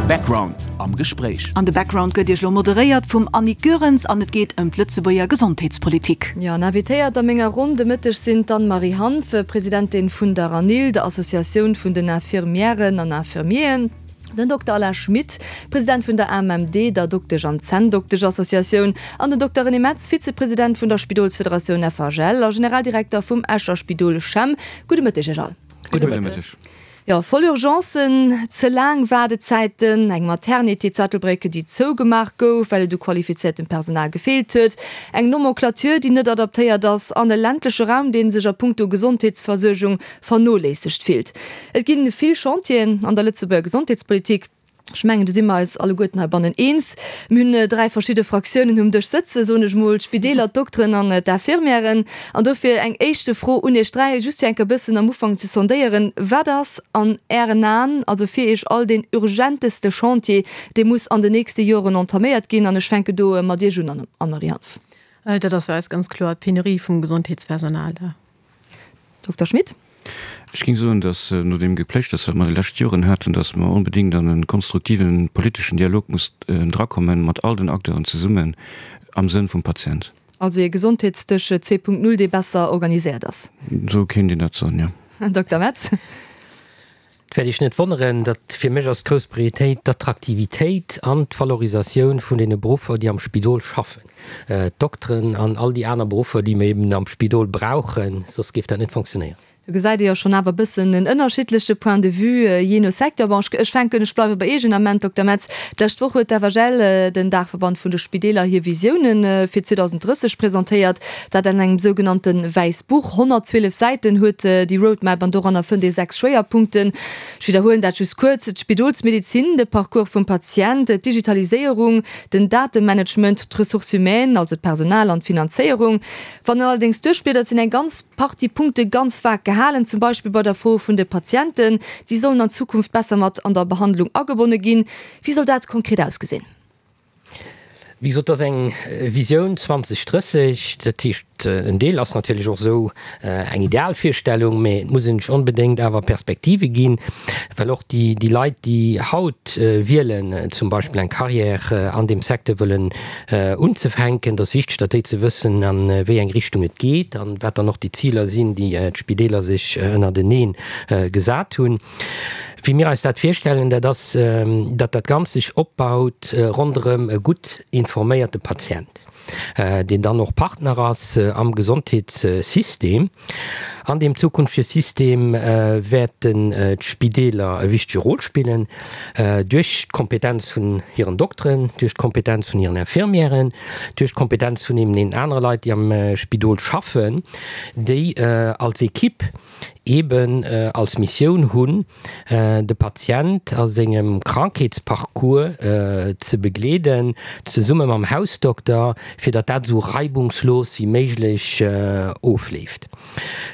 Background am Gespréich. An de Background gëtt Iech elo moderéiert vum Annick Goerens an et geet ëm d'Lëtzebuerger Gesondheetspolitik. Jo, an invitéiert a menger Ronn de Mëtteg sinn d'Anne-Marie Hanff, Presidentin vun der ANIL, der Associatioun vun den Infirmièren an Infirmieren, den Dokter Alain Schmit, President vun der AMMD, der Doktesch an Zänndoktesch-Associatioun, an den Dokter René Metz, Vizepresident vun der Spidolsfederatioun FHL a Generaldirekter vum Escher Spidol CHEM. Gudde Mëtteg Iech all. Gudde Mëtteg. Jo, voll Urgencen, ze laang Waardezäiten, eng Maternité zu Ettelbréck, déi zougemaach gouf, well et u qualifiziertem Personal gefeelt huet, eng Nomenclature, déi net adaptéiert ass an e ländleche Raum, dee sech a puncto Gesondheetsversuergung vernoléissegt fillt. Et gi vill Chantieren an der Lëtzebuerger Gesondheetspolitik. Ech mengen, do si mer eis alleguerten heibannen eens. Mir hunn dräi verschidde Fraktiounen um Dësch sëtzen, soen ech mol, d'Spideeler, d'Dokteren an d'Infirmièren. An dofir eng éischte Fro un Iech dräi, just fir enk e bëssen am Ufank ze sondéieren, Wat ass an Ären Aen, also fir Iech all, deen urgenteste Chantier, dee muss an den nächste Joren entaméiert ginn? An ech fänke do mat Iech un, Anne-Marie Hanff. Dat ass fir eis ganz kloer d'Penurie vum Gesondheetspersonal. Dokter Schmit. Ech géing soen, datt no deem Gepléischters, wat mer déi lescht Joren haten, datt mer onbedéngt an e konstruktiven politeschen Dialog muss drakommen, mat all den Acteuren zesummen, am Sënn vum Patient. Also ee Gesondheetsdësch 2.0, dee besser organiséiert ass. Esou kéint een dat soen, jo. Dokter Metz. Et wäert Iech net wonneren, datt fir mech ass d'grouss Prioritéit d'Attraktivitéit an d'Valorisatioun vun deene Beruffer, déi am Spidol schaffen, d'Dokteren an all déi aner Beruffer, déi mir eben am Spidol brauchen, soss géif dat net fonctionnéieren. Do gesäit ee jo schonn awer e bëssen en ënnerschiddleche Point de vue jee no Secteur. Bon, ech fänken, ech bleiwe bei Iech en Ament, Dokter Metz. D'lescht Woch huet d'FHL, den Daachverband vun de Spideeler, hir Visiounen fir 2030 presentéiert. Dat an engem sougenannte Wäissbuch. 112 Säiten huet déi Roadmap an doranner fënnt ee 6 Schwéierpunkten. Ech widderhuelen dat just kuerz, d'Spidolsmedezin, de Parcours vum Patient, d'Digitaliséierung, den Datemanagement, d'Ressources humaines, also d'Personal an d'Finanzéierung. Wann een allerdéngs duerchbliedert, sinn eng ganz Partie Punkte ganz vag gehalen, zum Beispill bei der Fro vun de Patienten. Déi sollen an Zukunft besser mat an der Behandlung agebonne ginn. Wéi soll dat konkret ausgesinn? Wéi gesot, et ass eng Visioun 2030. Dat heescht, en Deel ass natierlech och esou eng Idealvirstellung, mä et muss een sech onbedéngt awer Perspektive ginn, well och déi Leit, déi haut wielen, zum Beispill eng Carrière an deem Secteur wëllen unzefänken, et ass wichteg, datt déi ze wëssen, a wéi eng Richtung et geet an wat dann och déi Ziler sinn, déi d'Spideeler sech ënnertenee gesat hunn. Wéi mir eis dat virstellen, dat ass, datt dat Ganzt sech opbaut ronderëm e gutt informéierte Patient, deen dann och Partner ass am Gesondheetssystem. An deem zukünftege System wäerten d'Spideeler e wichtege Rôle spillen, duerch d'Kompetenz vun hiren Dokteren, duerch d'Kompetenz vun hiren Infirmièren, duerch d'Kompetenz vun eben deenen anere Leit, déi am Spidol schaffen, déi als Equipe eeben als Missioun hunn, de Patient a sengem Krankheetsparcours ze begleeden, zesumme mam Hausdokter, fir datt dat esou reibungslos wéi méiglech ofleeft.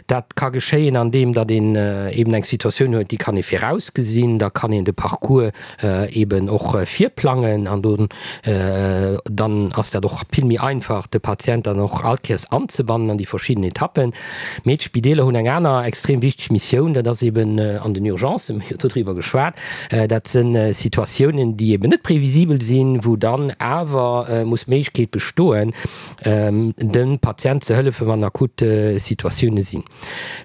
Dat ka geschéien, andeem datt een eeben eng Situatioun huet, déi kann ee virausgesinn, da kann een de Parcours eeben och virplangen an do dann ass dat och vill méi einfach, de Patient dann och all Kéiers anzebannen an déi verschidden Etappen. Mee d'Spideeler hunn eng aner extrem wichteg Missioun, dat ass eben an den Urgencen, mir hu jo doriwwer geschwat, dat si Situatiounen, déi eben net previsibel sinn, wou dann awer muss d'Méiglechkeet bestoen, dem Patient ze hëllefen, wann akut Situatioune sinn.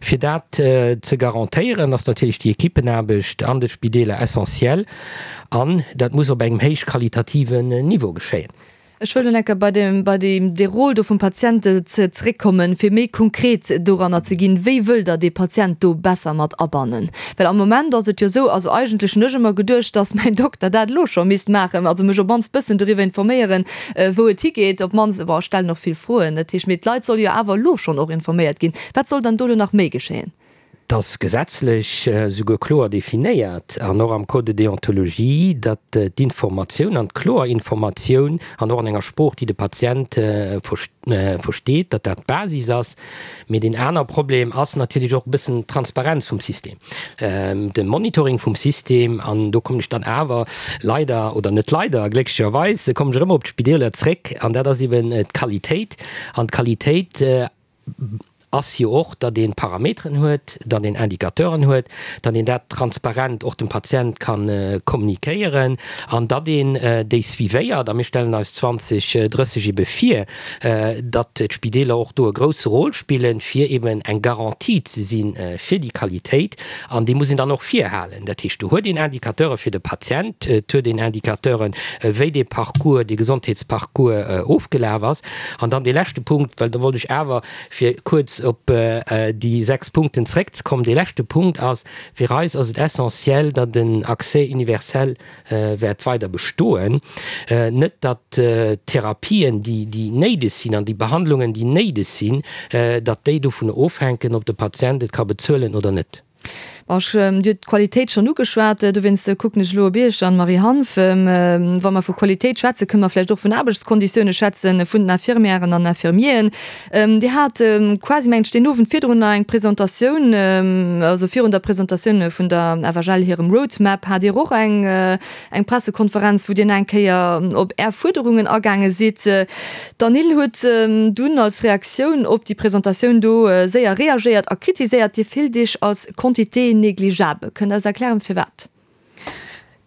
Fir dat ze garantéieren, ass natierlech déi Equippenaarbecht an de Spideeler essentiell an dat muss op engem héich qualitativen Niveau geschéien. Ech wëll elo enker bei dem, bei deem, dee Rôle do vum Patient ze, zeréckkommen, fir méi konkret doranner ze ginn. Wéi wëllt Der dee Patient do besser mat abannen? Well am Moment ass et jo esou, also eigentlech hunn ech ëmmer geduecht, dass mäin Dokter dat elo scho misst maachen, also mech op d'mannst bëssen doriwwer informéieren, wou et higeet, op d'mannst, bon, ech stellen och vill Froen, dat heescht, mee d'Leit solle jo awer elo schonn och informéiert ginn. Wat soll dann do elo nach méi geschéien? Et ass gesetzlech souguer kloer definéiert an och am Code de déontologie, datt d'Informatioun an d'kloer Informatioun an och an enger Sprooch, déi de Patient versteet, datt dat d'Basis ass. Mee deen aner Problem ass natierlech och e bëssen d'Transparenz vum System, de Monitoring vum System. An do kommen ech dann awer leider, oder net leider, glécklecherweis kommen ech erëm op d'Spideeler zréck, an dat ass eben d'Qualitéit. An d'Qualitéit. Ass jo och, datt ee Parameteren huet, datt een Indicateuren huet, datt een dat transparent och dem Patient ka kommunikéieren an datt een déi suivéiert. A mir stellen eis 2030 ebe vir, datt d'Spideeler och do e grousse Rôle spillen, fir eben eng Garantie ze si fir déi Qualitéit. An déi muss een dann och virhalen. Dat heescht, do huet een Indicateure fir de Patient, et huet een Indicateuren, wéi dee Parcours, dee Gesondheetsparcours ofgelaf ass. An dann dee leschte Punkt, well do wollt ech awer, fir kuerz op déi 6 Punkten zeréckzekommen, dee leschte Punkt ass, Fir eis ass et essentiel, datt en Accès universel wäert weider bestoen. Net datt d'Therapien, déi néideg sinn, an déi Behandlungen, déi néideg sinn, datt déi dovun ofhänken, ob de Patient et ka bezuelen oder net. Bon, ech, Dir hutt d'Qualitéit schonn ugeschwat, dowéinst kucken ech elo op Iech, Anne-Marie Hanff. Wa mer vu Qualitéit schwätzen, kënne mer vläicht och vun Aarbechtskonditioune schwätzen, vun den Infirmièren an Infirmieren. Dir hat quasi, mengen ech, deen Owend virdrun nach eng Presentatioun, also virun der Presentatioun vun der FHL hirem Roadmap hat Dir och eng, eng Pressekonferenz, wou Dir nach eng Kéier op Är Fuerderungen agaange sidd. D'ANIL huet dunn als Reaktioun op déi Presentatioun do séier reagéiert a kritiséiert, Dir fillt Iech als Quantité négligeable. Kënnt Der eis erklären, firwat?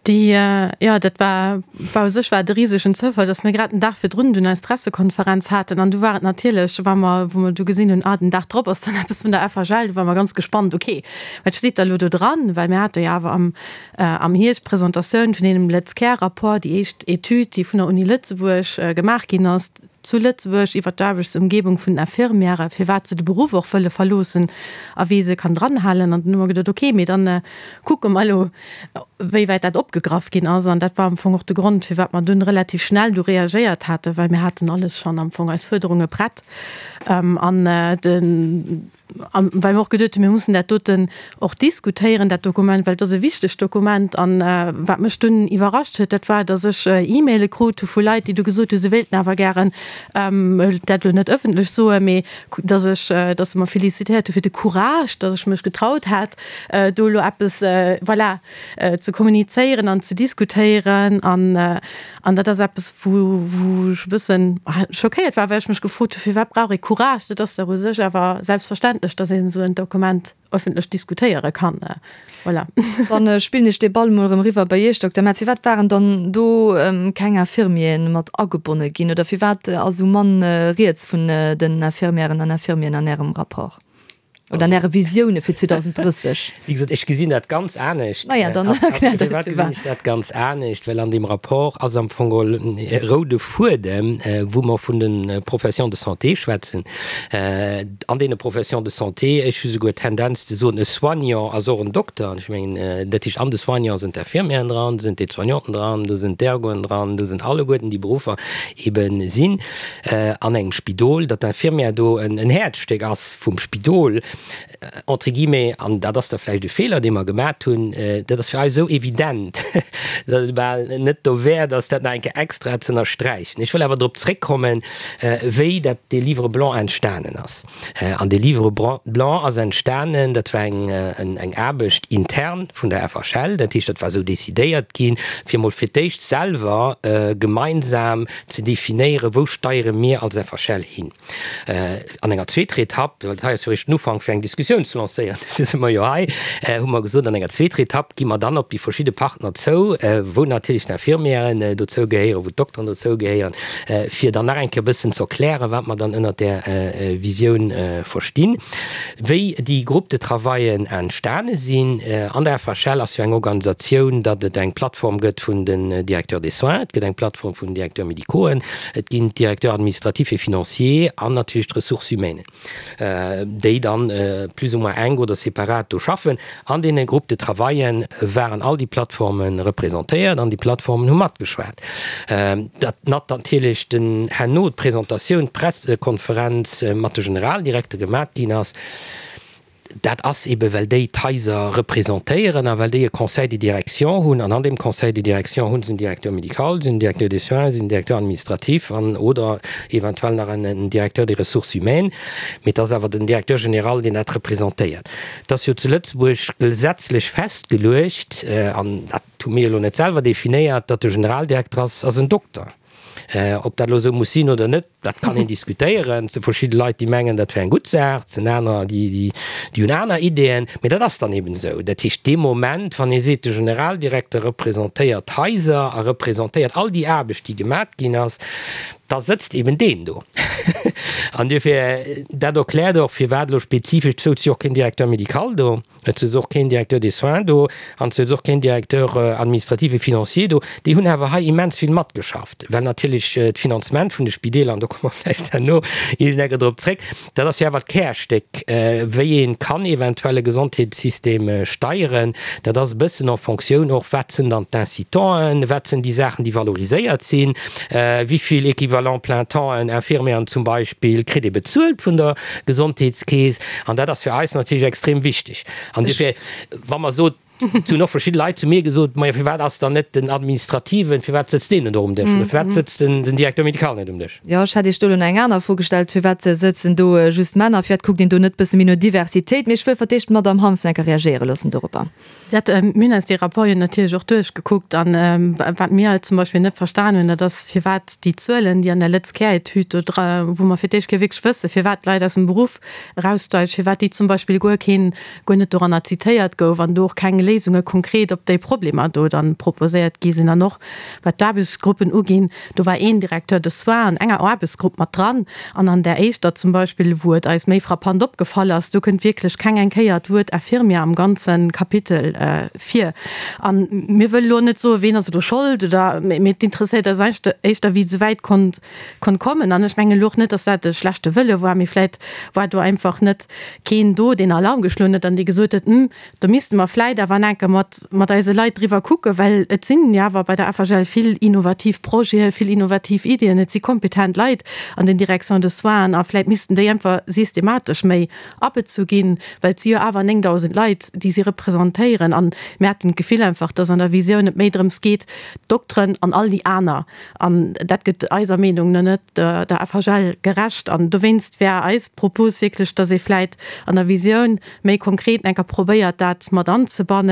Déi, jo, dat war, war u sech war et e risegen Zoufall, datt mir grad den Dag virdrun dunn eis Pressekonferenz haten. An du war et natierlech, wa mer, wou mer du gesinn hunn, ah, den Dag drop ass dann eppes vun der FHL, du ware mer ganz gespannt, okay, wat steet da elo do dran? Well mir hate jo awer am, am Hierscht d'Presentatioun vun deem LëtzCare-Rapport, déi éischt Etüd, déi vun der Uni Lëtzebuerg gemaach ginn ass zu Lëtzebuerg iwwer d'Aarbechtsëmgebung vun den Infirmièren, firwat se de Beruff och wëlle verloossen a wéi se kann dranhalen. An dann hu mer geduet, okay, mee dann kucke mer elo, wéi wäit dat opgegraff ginn ass. An dat war am Fong och de Grond, firwat mer dunn relativ schnell du reagéiert haten, well mir haten alles schonn am Fong, eis Fuerderunge prett. An de. A well mer och geduet hunn, mir mussen dat doten och diskutéieren, dat Dokument, well et ass e wichtegt Dokument. An wat mech dunn iwwerrascht huet, dat war, datt ech E-Maile krut hu vu Leit, déi du gesot hunn, se wéilten awer gären dat elo net ëffentlech soen, mee datt ech, datt se mer félicitéiert hu fir de Courage, datt ech mech getraut hätt, do elo eppes, voilà, ze kommunizéieren an ze diskutéieren. An An dat ass eppes, wou, wou ech e bëssen schockéiert war, well ech mech gefrot hu, firwat brauch ee Courage? Dat ass dach u sech awer selbstverständlech, datt een esou en Dokument öffentlech diskutéiere kann. Voilà. Dann spillen ech dee Ball emol erëm eriwwer bei Iech, Dokter Metz. Firwat waren dann do keng Infirmieren mat agebonne ginn oder firwat ass esou mann rieds vun den Infirmièren an Infirmieren an Ärem Rapport? Oder an Äre Visioune fir 2030? Wéi gesot, ech gesinn dat ganz anescht. Maja, dann erkläert eis firwat. Gesinn ech dat ganz anescht? Well an deem Rapport ass am Fong geholl e roude Fuedem, wou mer vun de Professions de santé schwätzen. An deene Professions de santé, ech hu souguer d'Tendenz ze soen, e Soignant ass och en Dokter. An ech mengen, dat heescht, an de Soignant sinn d'Infirmieren dran, do sinn d'Aide-soignanten dran, do sinn d'Ergoen dran, do sinn alleguerten déi Beruffer ebe sinn. an engem Spidol, datt d'Infirmière do en Häerzstéck ass vum Spidol, entre guillemets, an dat ass da vläicht e Feeler, dee mer gemat hunn, dat ass fir eis esou evident, datt et bal net dowäert ass, dat nach eng Kéier extra ze ënnersträichen. Ech wëll awer drop zréckkommen, wéi dat dee Livre blanc entstanen ass. An dee Livre blanc ass entstanen, dat war eng Aarbecht intern vun der FHL, dat heescht, dat war esou decidéiert ginn, fir emol fir d'éischt selwer gemeinsam ze definéieren, wou steiere mir als FHL hin. An enger zweeter Etapp, well dat hei ass jo eréischt den Ufank fir eng Diskussioun ze lancéieren, dofir si mer jo hei, hu mer gesot, an enger zweeter Etapp gi mer dann op déi verschidde Partner zou, wou natierlech d'Infirmièren dozou gehéieren, wou d'Dokteren dozou gehéieren, fir dann nach eng Kéier e bëssen ze erklären, wat mer dann ënnert där Visioun verstinn. Wéi déi Groupes de travaillen entstane sinn, an der FHL ass jo eng Organisatioun, datt et eng Plattform gëtt vun den Directeurs des soins, et gëtt eng Plattform vun den Directeurs médicauxen, et ginn d'Directeurs administratifs et financiers an natierlech d'Ressources humaines, déi dann plus ou moins enk oder separat do schaffen. An deene Groupes de travaillen waren all déi Plattforme representéiert an déi Plattformen hu matgeschwat. Datt natierlech den herno d'Presentatioun, d'Pressekonferenz mat de Generaldirekter gemat ginn ass, dat ass ebe well déi d'Haiser representéieren a well déi e Conseil de direction hunn. An an deem Conseil de direction hu se en Directeur médical, se hunn en Directeur des soins, se hunn en Directeur administratif an oder eventuell nach en Directeur des ressources humaines. Mee et ass awer den Directeur général, deen dat representéiert. Et ass jo zu Lëtzebuerg gesetzlech festgeluecht, an dat hu mir elo net selwer definéiert, datt de Generaldirekter ass, ass en Dokter. Ob dat elo esou muss sinn oder net, dat kann een diskutéieren. Et si verschidde Leit, déi mengen, dat wär eng gutt Saach, et sinn anerer, déi hunn aner Ideeën. Mee dat ass dann eben esou. Dat heescht, dee Moment, wann ee seet, de Generaldirekter representéiert d'Haiser a representéiert all déi Aarbecht, déi gemat ginn ass, da sëtzt eben deen do. An duerfir, dat erkläert och, firwat elo spezifesch, et souz jo och keen Directeur médical do. Et souz och keen Directeur des soins do an et souz och keen Directeur administratif et financier do. Déi hunn awer hei immens vill matgeschafft, well natierlech d'Finanzement vun de Spideeler, an do komme mer vläicht herno iergendecke drop zréck, dat ass jo awer d'Kärstéck, wéi ee kann eventuell e Gesondheetssystem steieren. Dat ass e bëssen en Fonctioun och, wat sinn dann d'Incitanten, wat sinn déi Saachen, déi valoriséiert sinn, wéi vill Équivalent plein temps-en, Infirmieren zum Beispill, kritt ee bezuelt vun der Gesondheetskeess. An dat ass fir eis natierlech extrem wichteg. An duerfir, wa mer sot, et hunn och verschidde Leit zu mir gesot, Majo, firwat ass dann net den Administrativen, firwat sëtzt deen net och um Dësch oder firwat sëtzt den Directeur médical net um Dësch? Jo, ech hätt Iech do elo nach eng aner Fro gestallt, Firwat sëtzen do just Männer? Firwat kuckt een do net bësse méi no Diversitéit? Mee ech wëll fir d'éischt d'Madamm Hanfnecker reagéiere loossen doropper. Dat, mir hunn eis dee Rapport jo natierlech och duerchgekuckt an wat mir halt zum Beispill net verstan hunn, dat ass firwat déi Zuelen, déi an der Lëtz-Care-Etüd do dra, wou mer fir d'éischt Kéier wierklech wësse firwat d'Leit aus dem Beruff eraussteigen, firwat déi zum Beispill guer keen, guer net doranner zitéiert gouf an do och keng Léisunge konkret op déi Problemer do dann proposéiert gi sinn. An och wat d'Aarbechtsgruppen uginn, Do war een Directeur de soins an enger Aarbechtsgrupp mat dran an an där éischter zum Beispill, wou et eis méi frappant opgefall ass, do kënnt wierklech keng eng Kéier d'Wuert Infirmier am ganze Kapitel vir. A mir wëlle lo net soen, ween ass elo Schold oder, mee et interesséiert eis éischter, wéi et esou wäit konnt konnt kommen. An ech mengen elo och net, dass dat e schlechte Wëlle war, mee vläicht war do einfach net keen do, deen Alarm geschloen huet an dee gesot huet, Hm, Do misste mer vläit awer enke mat, mat eise Leit driwwer kucken, well et sinn jo awer bei der FHL vill innovativ Projeten, vill innovativ Iddien, et si kompetent Leit an den Directions de soins a vläit missten déi einfach systematesch méi abezu ginn, well et si jo awer 9.000 Leit, déi si representéieren. An mir haten d'Gefill einfach, dass an der Visioun et méi drëms geet, d'Dokteren an all déi aner, an dat gëtt eiser Meenung no net der FHL gerecht. An dowéinst wär eis Propos wierklech, dass ee vläit an der Visioun méi konkret enker probéiert dat mat anzebannen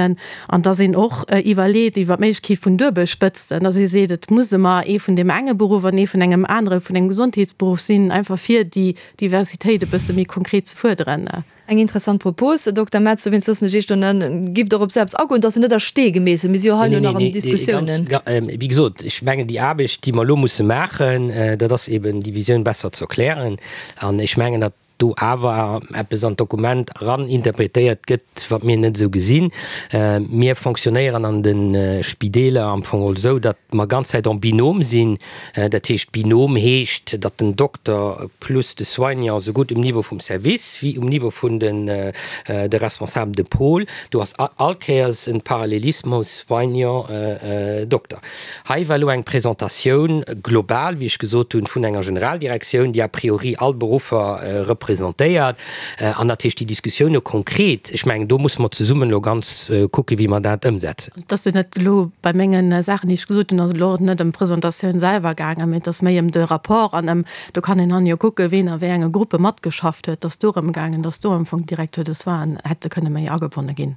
an dass een och iwwerleet iwwer d'Méiglechkeet vun Duebelspëtzten, dass ee seet, et muss ëmmer ee vun deem enge Beruff an ee vun engem anere vun engem Gesondheetsberuff sinn, einfach fir déi Diversitéit e bësse méi konkret ze fuerderen. Eng interessant Propos, Dokter Metz. Dowéinst loossen ech Iech do net, giff Der op esou eppes agoen? Et ass jo net a Stee gemeesselt, mir si jo hei elo nach an den Diskussiounen. Wéi gesot, ech mengen, déi Aarbecht, déi mer elo musse maachen, dat ass eben déi Visioun besser ze erklären. An ech mengen, datt do awer eppes an d'Dokument eran interpretéiert gëtt, wat mir net esou gesinn. Mir fonctionnéieren an de Spideeler am Fong geholl esou, datt mer ganz Zäit en binôme sinn. Dat heescht, Binôme heescht, datt den Dokter plus de Soignant sougutt um Niveau vum Service wéi um Niveau vun de Responsables de pôle, do ass all Kéiers e Parallelismus Soignant-Dokter. Hei war elo eng Presentatioun global, wéi ech gesot hunn, vun enger Generaldirektioun, déi a priori all Beruffer representéiert. An dat heescht, déi Diskussioune konkret, ech mengen, do musse mer zesummen elo ganz kucken, wéi mer dat ëmsetzen. Also et ass jo net elo bei menge Saachen, déi ech gesot hunn, ass et elo och net ëm d'Presentatioun selwer gaangen, mee et ass méi ëm de Rapport an ëm, do kann een dann jo kucken, ween a wéi enge Gruppe matgeschafft huet. Et ass dorëm gaangen, dass do am Fong d'Directeurs de soins hätte kënne méi agebonne ginn.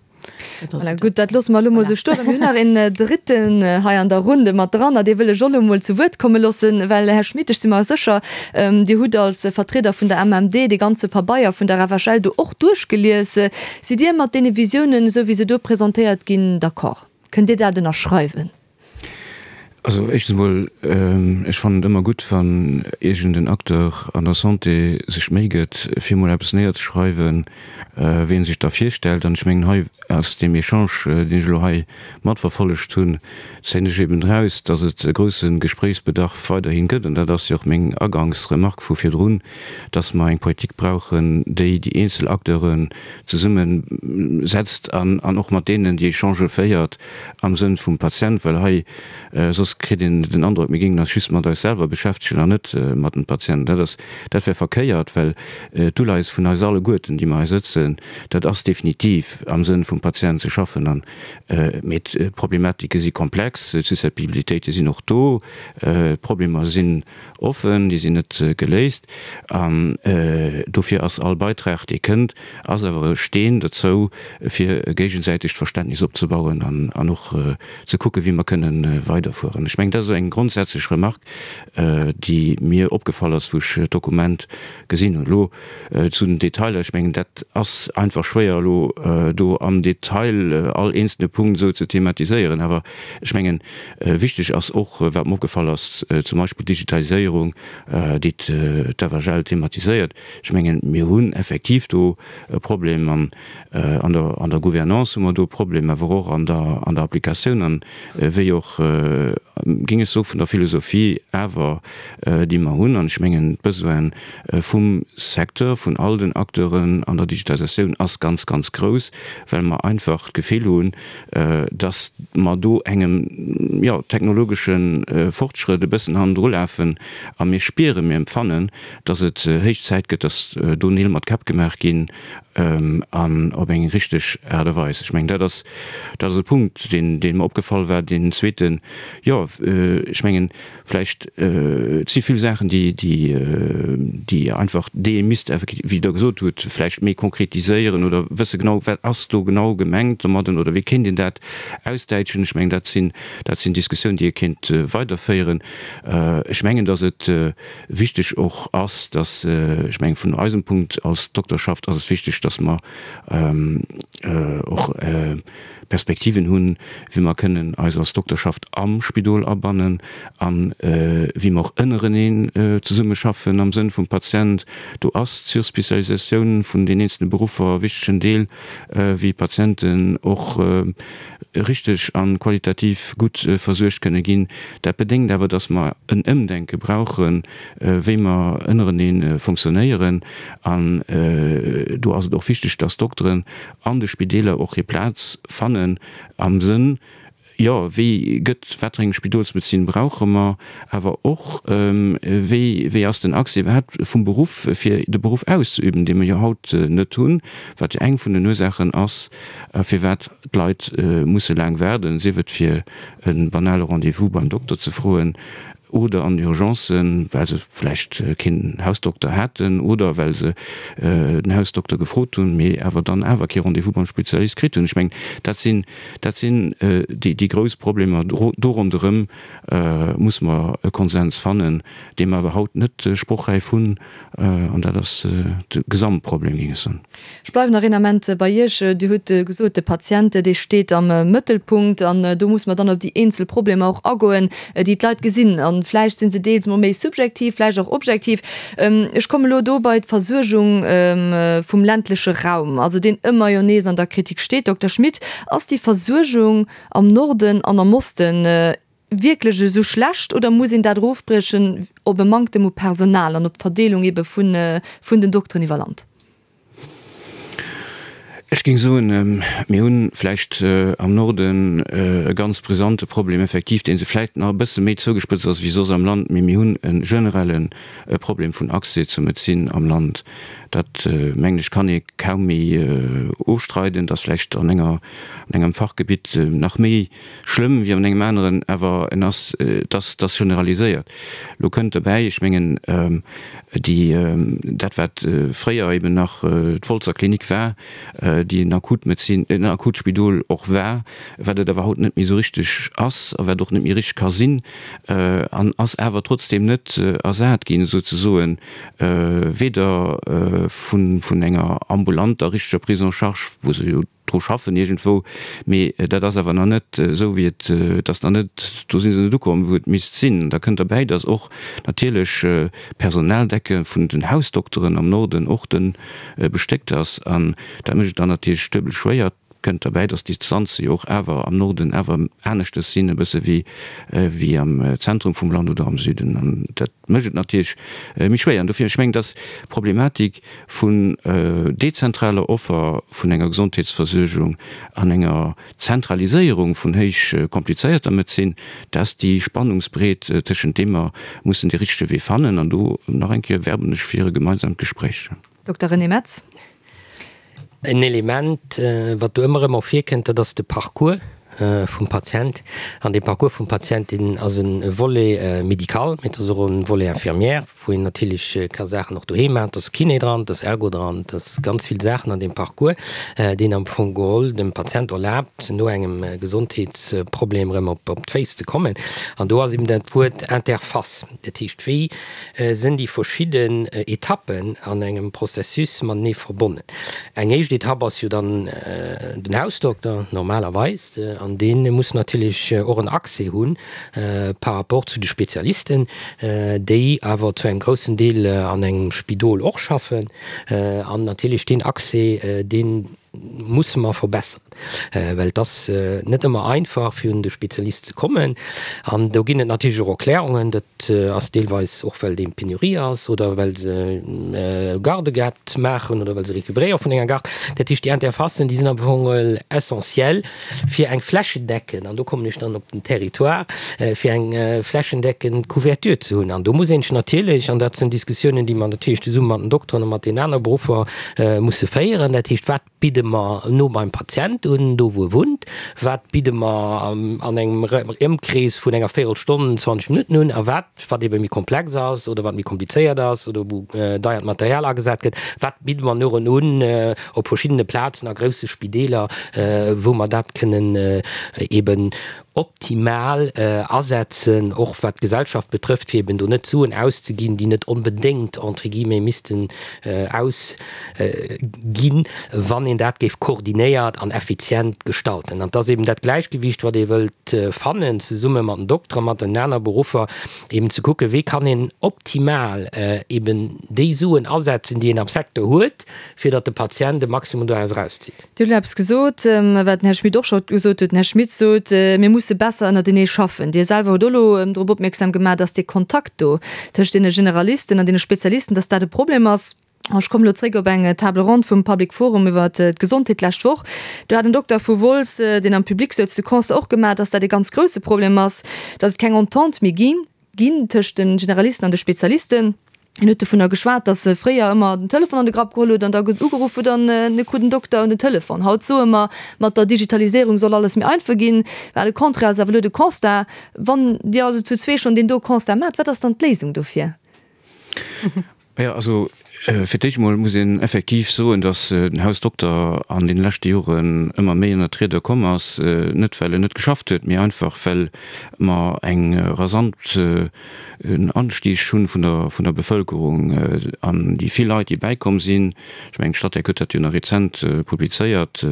Voilà, gutt, dat loosse mer elo mol esou stoen. Mir hunn nach een Dritten hei an der Runde mat dran, a dee wëll ech och elo mol zu Wuert komme loossen, well, Här Schmit, ech si mer sécher, Dir hutt als Vertrieder vun der MMD dee ganze Pabeier vun der FHL do och duerchgelies. Sidd Dir mat deene Visiounen, esou wéi se do presentéiert ginn, d'accord? Kënnt Dir dat ënnerschreiwen? Also éischtens emol, ech fannen et ëmmer gutt, wann iergend en Acteur an der Santé sech d'Méi gëtt, fir emol eppes néierzeschreiwen, wéi en sech da virstellt. An ech mengen, hei aus deem Echange, deen ech elo hei matverfollegt hunn, zéien ech eben eraus, datt et e grousse Gespréichsbedarf weiderhi gëtt. An dat ass jo och meng Agangsremark vu virdrun, datt mer eng Politik brauchen, déi déi eenzel Acteuren zesummesetzt an och mat deenen déi Echangë féiert, am Sënn vum Patient, well hei soss kritt een den Androck, mir géingen eis just mat eis selwer beschäftegen an net mat dem Patient. Dat ass, dat wär verkéiert, well d'Uleies vun eis alleguerten, déi mer hei sëtzen, dat ass definitiv am Sënn vum Patient ze schaffen. An, mee d'Problematike si komplex, d'Susceptibilitéite sinn och do, d'Problemer sinn offen, déi sinn net geléist. An dofir ass all Beitrag, dee kënnt, ass awer e Steen dozou, fir e géigesäitegt Verständnis opzebauen an och ze kucken, wéi mer kënnen weiderfueren. Konkretiséieren. Ech mengen, dat ass eng grondsätzlech Remarque, déi mir opgefall ass, wou ech d'Dokument gesinn hunn. Elo zu den Detailer, ech mengen, dat ass einfach schwéier elo do am Detail all eenzelne Punkt esou ze thematiséieren. Awer ech mengen, wichteg ass och, wat mer opgefall ass, zum Beispill d'Digitaliséierung, déi d'FHL thematiséiert. Ech mengen, mir hunn effektiv do e Problem an an der Gouvernance hu mer do e Problem, awer och an der an der Applikatioun an wéi och, géing ech soen, vun der Philosophie awer, déi mer hunn. An ech mengen, d'Besoin vum Secteur, vun all den Acteuren an der Digitalisatioun ass ganz, ganz grouss, well mer einfach d'Gefill hunn, dass mer do engem, jo, technologesche Fortschrëtt e bëssen hannendrulafen a mir spieren, mir empfannen, dass et héich Zäit gëtt, dass do Neel mat Käpp gemaach ginn an op eng richteg Aart a Weis. Ech mengen, dat ass, dat ass e Punkt, deen, dee mer opgefall war. Deen zweeten, jo, ech mengen, vläicht, et si vill Saachen, déi, déi, déi einfach, déi ee misst effektiv, wéi Der gesot hutt, vläicht méi konkretiséieren oder wësse genau, wat ass do genau gemengt domadden oder wéi kéint een dat ausdäitschen. Ech mengen, dat sinn, dat sinn Diskussiounen, déi ee kéint weiderféieren. Ech mengen, dass et Wichteg och ass, dass, ech mengen, vun eisem Punkt als Dokterschaft ass et wichteg, dass mer och Perspektiven hunn, wéi mer kënnen eis als Dokterschaft am Spidol abannen a wéi mer och ënnereneen zesummeschaffen am Sënn vum Patient. Do ass d'Surspécialisatioun vun den eenzelne Beruffer e wichtegen Deel, wéi Patienten och richteg a qualitativ gutt versuergt kënne ginn. Dat bedéngt awer, dass mer en Ëmdenke brauchen, wéi mer ënnerenee fonctionnéieren. An do ass et och wichteg, dass d'Dokteren an de Spideeler och hir Plaz fannen am Sënn, jo, wéi gëtt, wat fir eng Spidolsmedezin brauche mer, awer och, wéi, wéi ass den Accès iwwerhaapt vum Beruff, fir de Beruff auszeüben, dee mer jo haut net hunn, wat jo eng vun den Ursaachen ass, firwat d'Leit musse laang waarden, sief et fir e banale Rendez-vous beim Dokter ze froen oder an Urgencen, well se vläicht keen Hausdokter haten oder well se den Hausdokter gefrot hunn, mee awer dann awer kee Rendez-vous beim Spezialist kritt hunn. Ech mengen, dat sinn, dat sinn déi grouss Problemer. Do ronderëm musse mer e Konsens fannen, dee mer awer haut net sprochräif hunn, an dat ass de Gesamtproblem, géing ech soen. Ech bleiwen nach een Ament bei Iech. Dir hutt gesot, de Patient, dee steet am Mëttelpunkt. An do muss mer dann op déi eenzel Problemer och agoen, déi d'Leit gesinn. A vläicht si se deels mol méi subjektiv, vläicht och objektiv. Ech komme lo do bei d'Versuergung vum ländleche Raum, also deen ëmmer jo nees an der Kritik steet. Dokter Schmit, ass déi Versuergung am Norden an am Osten wierklech esou schlecht oder muss een dat erofbriechen op e Manktem u Personal an op d'Verdeelung ebe vun vun den Dokteren iwwer Land? Ech géing soen, mir hu vläicht am Norden e ganz brisante Problem effektiv, dee vläicht nach e bësse méi zougespëtzt ass wéi soss am Land, mee mir hunn e generelle Problem vun Accès zur Medezin am Land. Dat, mengen ech, kann ee kaum méi ofstreiden. Et ass vläicht an enger, an engem Fachgebitt nach méi Schlëmm wéi an engem aneren, awer en ass, et ass, et ass generaliséiert. Elo kënnt dobäi, ech mengen, déi, dat wat fréier eben nach d'Wolzer Klinik war, déi en Akutmedezin, en Akutspidol och war, wat et awer haut net méi esou richteg ass a wat och net méi richteg ka sinn, an ass awer trotzdeem net ersat ginn souzesoen, weder vun, vun enger ambulanter richteger Prise en charge, wou se jo, dru schaffen iergendwou, mee dat ass awer nach net esou wéi et, et ass nach net, do si se net ukomm wou et misst sinn. Da kënnt derbäi, datt och natierlech d'Personaldecke vun den Hausdokteren am Norden och dënn bestéckt ass an dat mécht et dann natierlech duebel schwéier. Kënnt derbäi, datt d'Distanze jo och awer am Norden awer aneschtes sinn e bësse wéi wéi am Zentrum vum Land oder am Süden an dat mécht et natierlech méi schwéier. An dofir, ech mengen, datt d'Problematik vun dezentraler Offer vun enger Gesondheetsversuergung an enger Zentraliséierung vun héich komplizéierter Medezin, dat ass déi Spannungsbreet, tëschent deem mer mussen dee richtege Wee fannen. An do, nach eng Kéier, werben ech fir e gemeinsamt Gespréich. Dokter René Metz. En Element, wat do ëmmer erëm ervirkënnt, dat ass de Parcours. vum Patient. An dee Parcours vum Patient, deen ass e Volet médical, mee et ass och e Volet infirmière, wou een natierlech ka Saachen och doheem maachen. Et ass Kiné dran, et ass Ergo dran, et ass ganz vill Saachen an deem Parcours, deen am Fong geholl dem Patient erlaabt, no engem Gesondheetsproblem erëm op d'Féiss ze kommen. An do ass eben dat Wuert Interface, dat heescht, wéi sinn déi verschidden Etappen an engem Processus matenee verbonnen. Eng éischt Etapp ass jo dann den Hausdokter normalerweis, an dee muss natierlech och en Accès hu par rapport zu de Spezialisten, déi awer zu engem groussen Deel an engem Spidol och schaffen. An natierlech deen Accès, dee musse mer verbesseren, well et ass net ëmmer einfach, fir un de Spezialist ze kommen. An do ginn et natierlech och Erklärungen, dat ass deelweis och, well dee Penurie ass oder well se Gardë gehat maachen oder well se récupéréiere vun enger Garde. Dat heescht, déi Interfacen, déi sinn am Fong essentiell, fir eng flächendeckend, an do kommen ech dann op den Territoire, fir eng flächendeckend Couverture ze hunn. An do muss een sech natierlech, an dat sinn Diskussiounen, déi mer natierlech zesumme mat den Dokteren a mat deenen aner Beruffer musse féieren, dat heescht, wat bidde mer no beim Patient un, do wou e wunnt, wat bidde mer an engem Ëmkrees vun enger Véirelstonn, 20 Minutten un, a wat, wat ebe méi komplex ass oder wat méi komplizéiert ass oder wou deiert Material agesat gëtt, wat bidde mer no en un op verschiddene Plazen a grousse Spideeler, wou mer dat kënnen eben optimal asetzen, och wat d'Gesellschaft betrëfft, fir eben do net Suen auszeginn, déi net onbedéngt, entre guillemets, missten ausginn, wann een dat géif koordinéiert an effizient gestalten. An et ass eben dat Gläichgewicht, wat ee wëllt fannen, zesumme mat den Dokteren, mat den aner Beruffer, eben ze kucken, wéi kann een optimal eben déi Suen asetzen, déi een am Secteur huet, fir datt de Patient de Maximum doraus erauszitt. Dir hutt elo eppes gesot, wat den Här Schmit och scho gesot huet. Den Här Schmit sot, mir musse besser ënnertenee schaffen. Dir selwer hutt och elo drop opmierksam gemaach, dass dee Kontakt do tëscht deene Generalisten an deene Spezialisten, dass dat e Problem ass. Ech kommen elo zréck op eng Table ronde vum Public Forum iwwert d'Gesondheet d'lescht Woch. Do hat en Dokter vu Wolz, deen am Public souz, de Constat och gemaach, dass dat e ganz grouse Problem ass, dass et keng Entente méi ginn. Ginn tëscht de Generalisten an de Spezialisten. En huet dovunner geschwat, datt e fréier ëmmer den Telefon an de Grapp geholl huet an da ugeruff huet an e krut en Dokter un den Telefon. Haut soe mer, mat der Digitaliséierung soll alles méi einfach ginn. Mä le contraire ass awer elo de Constat. Wann Dir also zu zwee schonn deen do Constat maacht, wat ass dann d'Léisung dofir? Jo, also fir d'éischt emol muss een effektiv soen, datt den Hausdokter an deene leschte Joren ëmmer méi ënnert d'Rieder komm ass, net well en net geschafft huet, mee einfach well mer eng rasant Anstieg hunn vun der vun der Bevëlkerung an déi vill Leit, déi bäikomm sinn. Ech mengen, d'Statec huet dat jo nach rezent publizéiert,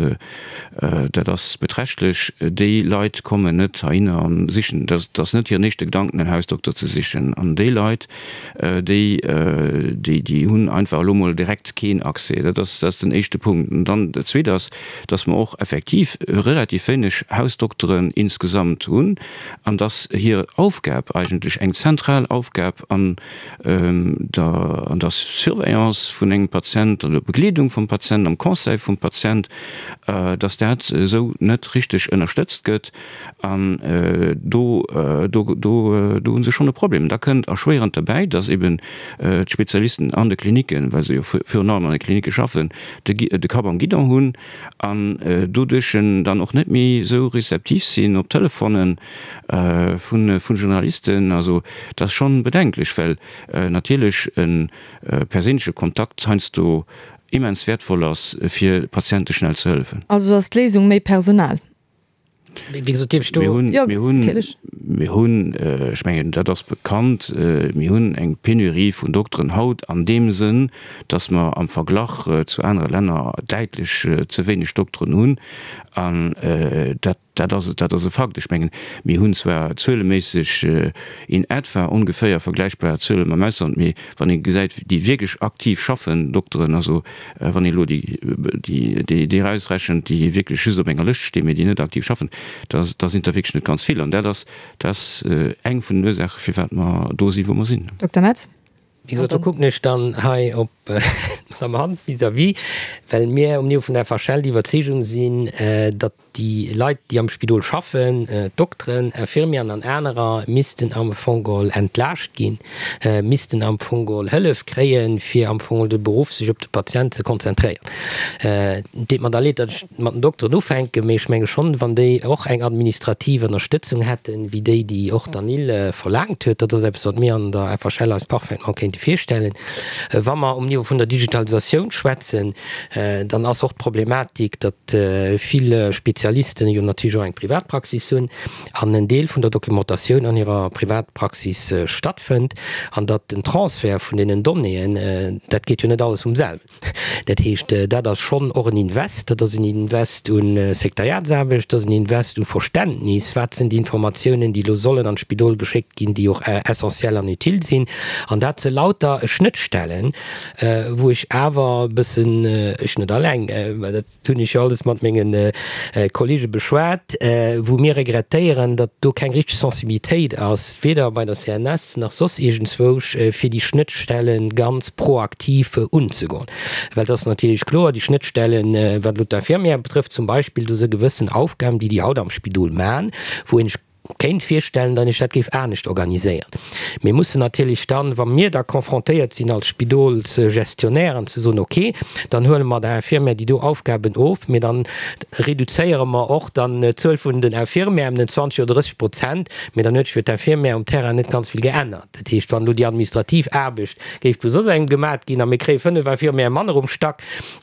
dat ass beträchtlech. Déi Leit kommen net heihinner a sichen, dat ass net hiren éischte Gedanken, en Hausdokter ze sichen. An déi Leit, déi, déi, déi hunn einfach elo mol direkt keen Accès. Dat ass, dat ass den éischte Punkt. An dann dat Zweet ass, dass mer och effektiv relativ wéineg Hausdokteren insgesamt hunn an dass hir Aufgab eigentlech eng zentral Aufgab an der, an der Surveillance vun engem Patient, an der Begleedung vum Patient, am Conseil vum Patient, dass dat esou net richteg ënnerstëtzt gëtt. An do, do, do, do hu se schonn e Problem. Da kënnt erschwéierend derbäi, dass eben d'Spezialisten an de Klinicken, well se jo virun allem an de Klinicke schaffen, de, de Kapp am Guidon hunn an doduerch dann och net méi esou rezeptiv sinn op Telefonen vu, vu Journalisten. Also dat ass schonn bedenklech, well natierlech e perséinleche Kontakt heiansdo immens wäertvoll ass, fir Patiente schnell ze hëllefen. Also ass d'Léisung méi Personal? Wéi gesot, dierf ech do. Mir hunn, mir hunn, mir hunn, ech mengen, dat ass bekannt, mir hunn eng Penurie vun Dokteren haut an deem Sënn, datt mer am Verglach zu anere Länner däitlech ze wéineg Dokteren hunn. An dat, dat ass, dat ass e Fakt. Ech mengen, mir hunn zwar zueleméisseg in etwa ongeféier vergläichbar Zuele mam Ausland, mee wann ee gesäit, déi wierklech aktiv schaffen, Dokteren, also wann ee elo déi erausrechent, déi wierklech just op enger Lëscht stinn, mee déi net aktiv schaffen, da sinn der wierklech net ganz vill. An dat ass, dat ass eng vun den Ursaachen, firwat mer do sinn, wou mer sinn. Dokter Metz. Wéi gesot, do kucken ech dann hei op. Madamm Hanff vis-à-vis, well mir um Niveau vun der FHL déi Iwwerzeegung sinn, datt déi Leit, déi am Spidol schaffen, d'Dokteren, Infirmieren an anerer, missten am Fong geholl entlaascht ginn, missten am Fong geholl Hëllef kréien, fir am Fong geholl de Beruff sech op de Patient ze konzentréieren. Et deet mer da leed, datt ech mat den Dokteren ufänken, mee ech menge schonn, wann déi och eng administrativ Ënnerstëtzung hätten, wéi déi, déi och d'ANIL verlaangt huet, dat ass eppes, wat mir an der FHL eis parfaitement kéinte virstellen. Wa mer um Niveau vun der Digitalisatioun schwätzen, dann ass och d'Problematik, datt vill Spezialisten jo natierlech och eng Privatpraxis hunn an en Deel vun der Documentatioun an hirer Privatpraxis stattfënnt an datt den Transfert vun deenen Donnéeën, dat geet jo net alles vum selwen. Dat heescht, dat ass schonn och en Invest. Dat ass en Invest u Sekretariatsaarbecht, dat ass en Invest u Verständnis, wat sinn déi Informatiounen, déi elo sollen an d'Spidol geschéckt ginn, déi och essentiell an utile sinn. An dat si lauter Schnëttstellen, wou ech awer e bëssen, ech net alleng, mä dat hunn ech jo alles mat menge Kollege beschwat, wou mir regrettéieren, datt do keng richteg Sensibilitéit ass, weder bei der CNS nach soss iergendzwousch, fir déi Schnëttstelle ganz proaktiv unzegoen. Well et ass natierlech kloer, déi Schnëttstellen, wat elo d'Infirmière betrëfft zum Beispill, do si gewëssen Aufgaben, déi déi haut am Spidol maachen, wou een sech kéint virstellen, datt ech dat géif anescht organiséieren. Mir mussen natierlech dann, wa mir da confrontéiert sinn als Spidolsgestionnairen, ze soen, okay, dann huele mer der Infirmière déi do Aufgaben of, mee dann reduzéiere mer och dann d'Zuel vun den Infirmièren ëm den 20 oder 30 Prozent, mee dann huet sech fir d'Infirmière um Terrain net ganz vill geännert. Dat heescht, wann elo déi administrativ Aarbecht géif vu soss engem gemat ginn a mir kréie 5 Infirmièrë manner um Stack,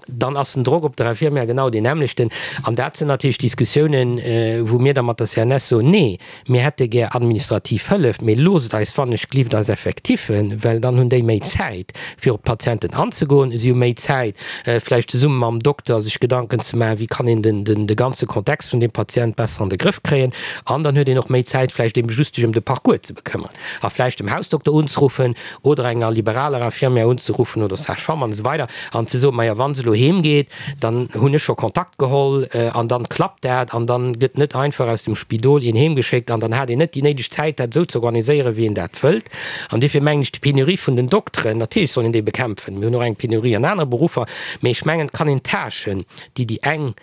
dann ass den Drock op der Infirmière genau deen nämmlechten. An dat sinn natierlech Diskussiounen, wou mir da mat der CNS soen, Nee, mir hätte gär administrativ Hëllef, mee loosst eis wannechglift eis Effectiffen, well dann hunn déi méi Zäit, fir op d'Patienten anzegoen, si hu méi Zäit, vläicht zesumme mam Dokter sech Gedanken ze maachen, wéi kann een de ganze Kontext vun deem Patient besser an de Grëff kréien. An dann huet een och méi Zäit, vläicht ebe just sech ëm de Parcours ze bekëmmern a vläicht dem Hausdokter unzeruffen oder enger liberaler Infirmière unzeruffen oder Sage-femme an esou weider an ze soen, majo, wa se elo heem geet, dann hunn ech scho Kontakt geholl an dann klappt dat an dann gëtt net einfach aus dem Spidol een heem geschéckt an dann hat een net déi néideg Zäit, dat esou ze organiséieren, wéi een dat wëllt. An duerfir mengen ech, déi Penurie vun den Dokteren, natierlech soll een déi bekämpfen, mir hunn och eng Penurie an anere Beruffer, mee ech mengen, et kann een d'Tâchen, déi déi eng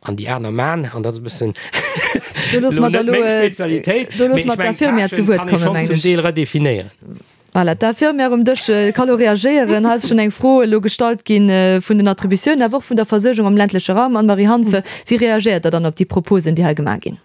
An déi aner man, an dat ass e bëssen Do loosse mer da elo, do loosse mer d'Infirmière zu Wuert kommen, mengen ech. Zum Deel redefinéieren. Voilà, d'Infirmière um Dësch ka lo reagéieren. Hei ass schonn eng Fro elo gestallt gi vun den Attributiounen, awer och vun der Versuergung am ländleche Raum. Anne-Marie Hanff, wéi reagéiert Der dann op déi Proposen, déi hei gemaach ginn?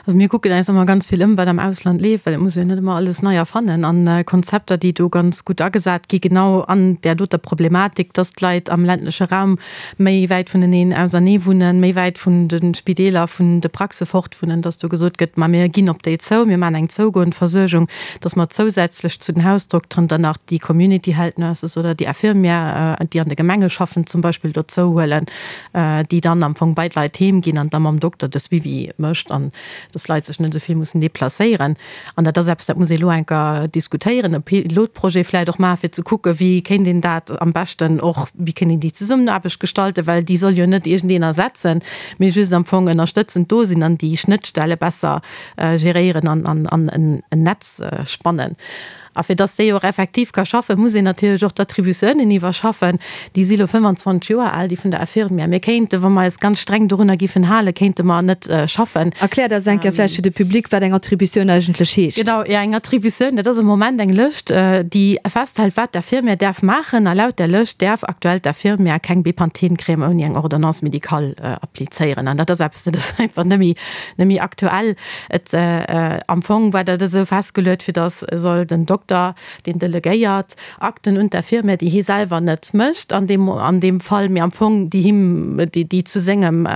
Also mir kucken eis ëmmer ganz vill ëm, wat am Ausland leeft, well et muss ee jo net ëmmer alles nei erfannen. An Konzepter, déi do ganz gutt agesat gi genau an där doter Problematik, dass d'Leit am ländleche Raum méi wäit vuneneen ausernee wunnen, méi wäit vun de Spideeler, vun de Praxe fort wunnen, dass do gesot gëtt, ma mir ginn op déi zou, mir maachen eng zougoend Versuergung, dass mer zousätzlech zu den Hausdokteren dann nach déi Community Health Nurses oder déi Infirmière, déi an de Gemenge schaffen zum Beispill, dozou huelen. déi dann am Fong bei d'Leit heem ginn an da mam Dokter de Suivi mécht an dass d'Leit sech net esou vill mussen deplacéieren. An dat ass eppes, dat muss ee elo enker diskutéieren, e Pilotprojet vläicht och maachen, fir ze kucken, wéi kéint een dat am beschten och, wéi kéint een déi Zesummenaarbecht gestalten, well déi soll jo net iergendeen ersetzen, mee just am Fong ënnerstëtzend do sinn an déi Schnëttstelle besser geréieren an an en Netz spannen. A fir dass déi och effektiv ka schaffen, muss een natierlech och d'Attributiounen iwwerschaffen. Déi si lo 25 Joer al, déi vun der Infirmière. Mir kéinten, wa mer eis ganz streng dorunner giffen halen, kéinte mer net schaffen. Erkläert eis eng Kéier vläicht fir de Public, wat eng Attributioun eigentlech heescht. Genau, jo, eng Attributioun, dat ass am Moment eng Lëscht, déi festhält, wat d'Infirmière däerf maachen. A laut där Lëscht däerf aktuell d'Infirmière keng Bepanthen-Crème ouni eng Ordonnance médicale applizéieren. An dat ass eppes, dat ass einfach net méi, net méi aktuell. Et, am Fong war dat esou festgeluet, fir datt soll den Dokter, deen delegéiert, Akten un d'Infirmière, déi hie selwer net mécht an deem, an deem Fall, mee am Fong déi him, déi, déi zu sengem,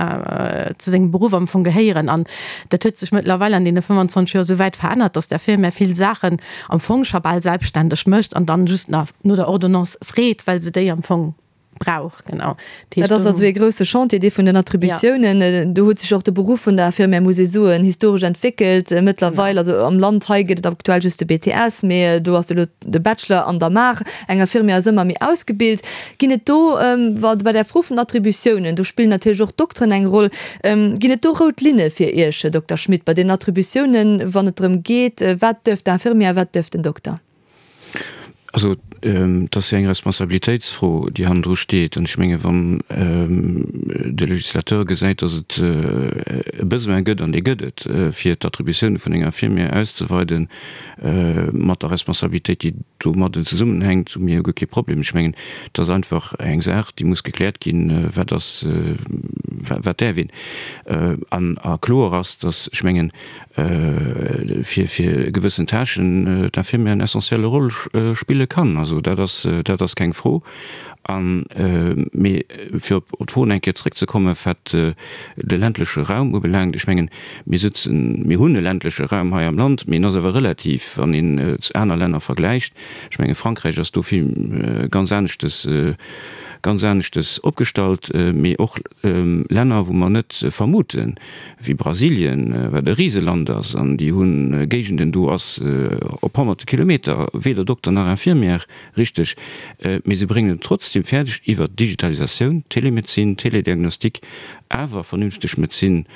zu sengem Beruff am Fong gehéieren. An dat huet sech mëttlerweil an deene 25 Joer esou wäit verännert, datt d'Infirmière vill Saachen am Fong scho bal selbstständeg mécht an dann just nach no der Ordonnance freet, well se déi am Fong brauch, genau. Dat ass also ee grousse Chantier, dee vun den Attributiounen. Do huet sech och de Beruff vun der Infirmière, muss ee soen, historesch entwéckelt. Mëttlerweil, also am Land hei gëtt et aktuell just de BTS, mee do ass elo de Bachelor an der Maach. Eng Infirmière ass ëmmer méi ausgebilt. Ginn et do, wa bei där Fro vun den Attributiounen, do spillen natierlech och d'Dokteren eng Roll, ginn et do rout Linne fir Iech, Här Dokter Schmit, bei den Attributiounen, wann et drëm geet, wat duerf d'Infirmière, wat duerf den Dokter? Also, et ass jo eng Responsabilitéitsfro, déi hannendru steet. An ech menge wann de Législateur gesäit, datt et e Besoin gëtt, an dee gëtt et, fir d'Attributioune vun enger Infirmière auszeweiden, mat der Responsabilitéit, déi domadden zesummenhänkt, hu mir jo guer kee Problem. Ech mengen, et ass einfach eng Saach, déi muss gekläert ginn, wat ass, wat däerf een. An a kloer ass, datt, ech mengen, fir fir gewëssen Tâchen d'Infirmière en essentielle Rôle spille kann. Also dat ass, dat ass keng Fro. An, mee fir op d'Fro eng Kéier zrëckzekommen, wat de ländleche Raum ubelaangt, ech mengen, mir sëtzen, mir hunn e ländleche Raum hei am Land, mee en ass awer relativ, wann een aner Länner vergläicht. Ech menge Frankräich ass do vill ganz aneschtes, ganz aneschtes opgestallt, mee och Länner, wou mer net vermuten, wéi Brasilien, wat e Riseland ass, an déi hu Géigenden, do ass op honnerte Kilometer weder Dokter nach Infirmière, richteg, mee se bréngen et trotzdem fäerdeg, iwwer Digitalisatioun, Telemedezin, Telediagnostik, awer vernünfteg Medezin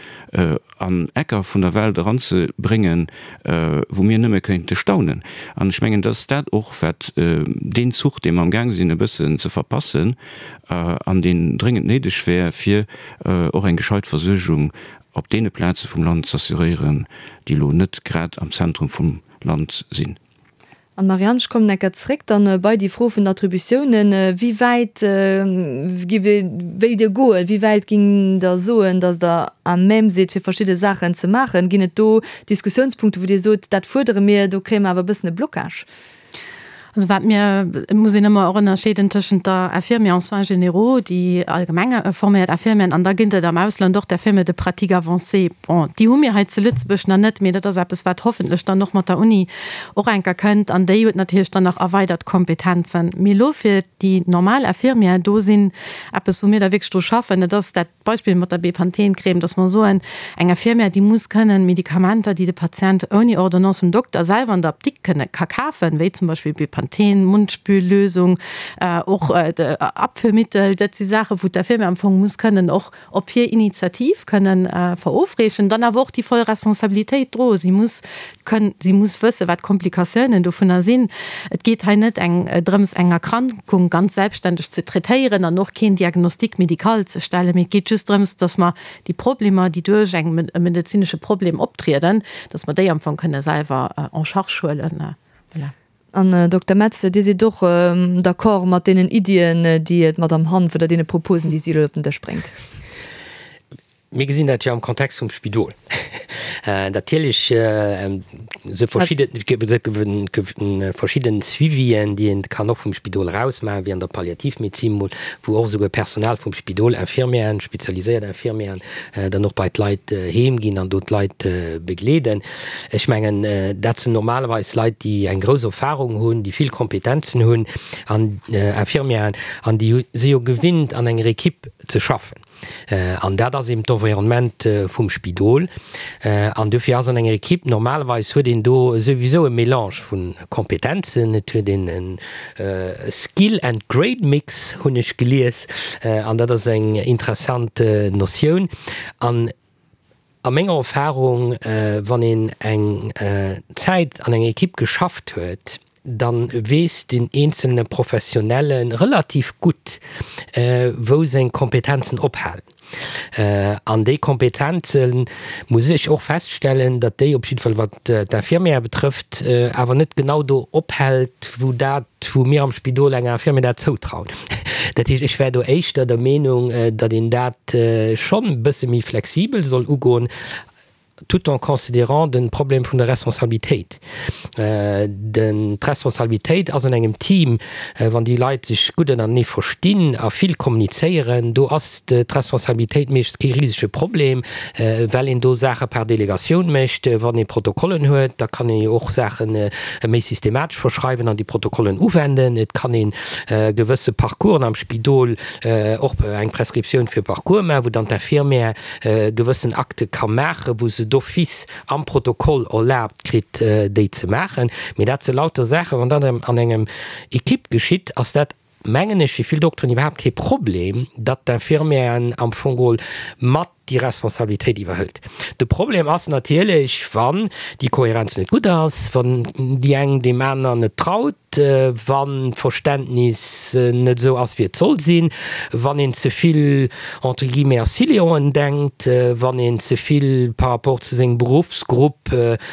an Ecker vun der Welt eranzebréngen, wou mir nëmme kéinte staunen. An ech mengen, dat ass dat och, wat deen Zuch, dee mer amgaang sinn e bëssen ze verpassen an deen dréngend néideg wär, fir och eng gescheit Versuergung op deene Plaze vum Land z'assuréieren, déi elo net grad am Zentrum vum Land sinn. An, Marianne, ech kommen eng Kéier zréck dann bei déi Fro vun den Attributiounen. Wéi wäit giff Dir, wéilt Dir goen? Wéi wäit ging Der soen, datt Der à même sidd, fir verschidde Saachen ze maachen? Ginn et do Diskussiounspunkte, wou Dir sot, dat fuerdere mir, do kréie mer awer e bëssen e Blocage? Also wat mir, et muss een ëmmer och ënnerscheeden tëschent der Infirmière en soins généraux, déi allgemeng forméiert Infirmieren, an da ginn et am Ausland och d'Infirmières de pratique avancée. Bon, déi hu mir hei zu Lëtzebuerg nach net, mee dat ass eppes, wat hoffentlech dann och mat der Uni och enker kënnt. An déi huet natierlech dann nach erweidert Kompetenzen. Mee elo fir déi normal Infirmière, do sinn eppes, wou mir da wierklech dru schaffen, dat ass dat Beispill mat der Bepanthen-Crème, dass mer soen, eng Infirmière, déi muss kënnen Medikamenter, déi de Patient ouni Ordonnance vum Dokter selwer an der Apdikt kënne ka kafen, wéi zum Beispill Bepanthen, Mundspüllösung, och Abführmittel, dat si Saachen, wou d'Infirmière am Fong muss kënnen och op hir Initiativ kënnen verofreechen, dann awer och déi voll Responsabilitéit droen. Si muss kënnen, si muss wëssen, wat d'Komplikatiounen dovunner sinn. Et geet hei net eng drëms, eng Erkrankung ganz selbstständeg ze traitéieren an och keen Diagnostic médical ze stellen, mee et geet just drëms, dass mer déi Problemer, déi duerch eng e medezinesche Problem optrieden, dass mer déi am Fong kënne selwer en charge huelen. Voilà. An, Dokter Metz, Dir sidd och d'accord mat deenen Iddien, déi d'Madame Hanff oder deene Proposen, déi si elo op den Dësch bréngt? Mir gesinn dat jo am Kontext vum Spidol. Natierlech esou verschidde verschidden Suivien, déi een kann och vum Spidol eraus maachen, wéi an der Palliativmedezin mol, wou och esouguer Personal vum Spidol, Infirmieren, spezialiséiert Infirmieren, dann och bei d'Leit heem ginn an do d'Leit begleeden. Ech mengen, dat sinn normalerweis Leit, déi eng grouss Erfahrung hunn, déi vill Kompetenzen hunn an Infirmieren, an déi si jo gewinnt an enger Equipe ze schaffen. An dat ass eben d'Environnement vum Spidol. An dofir ass an enger Equipe, normalerweis huet een do souwisou e Mélange vu Kompetenzen, et huet een e Skill and Grade Mix, hunn ech gelies, an dat ass eng interessant Notioun. An A menger Erfahrung, wann een eng Zäit an enger Equipe geschafft huet, da weess den eenzelne Professionelle relativ gutt, wou seng Kompetenzen ophalen. An déi Kompetenze muss ech och feststellen, datt déi op jidde Fall, wat d'Infirmière betrëfft, awer net genau do ophält, wou dat, wou mir am Spidol enger Infirmière dat zoutrauen. Dat heescht, ech wär do éischter der Meenung, datt een dat schonn e bësse méi flexibel soll ugoen, tout en considérant de Problem vun der Responsabilitéit. Den, d'Responsabilitéit ass an engem Team, wann déi Leit sech gutt ënnertenee verstinn a vill kommunizéieren, do ass d'Responsabilitéit meeschtens kee risege Problem, well een do Saache par Delegatioun mécht. Wann ee Protokollen huet, da kann ee jo och Saache méi systematesch verschreiwen an déi Protokollen uwenden. Et kann ee gewësse Parcoursen am Spidol och eng Prescriptioun fir Parcours maachen, wou dann d'Infirmière gewëssen Akte ka maachen, wou se d'office am Protokoll erlaabt kritt, déi ze maachen. Mee dat si lauter Saachen, wann dat an engem Equipe geschitt, ass dat, mengen ech, fir vill Dokteren iwwerhaapt kee Problem, datt d'Infirmièren am Fong geholl mat déi Responsabilitéit iwwerhëlt. De Problem ass natierlech, wann déi Kohärenz net gutt ass, wann déi eng deem aner net traut. Wann d'Verständnis net esou ass, wéi et soll sinn, wann een ze vill entre guillemets a Siloen denkt, wann een ze vill par rapport zu sengem Beruffsgrupp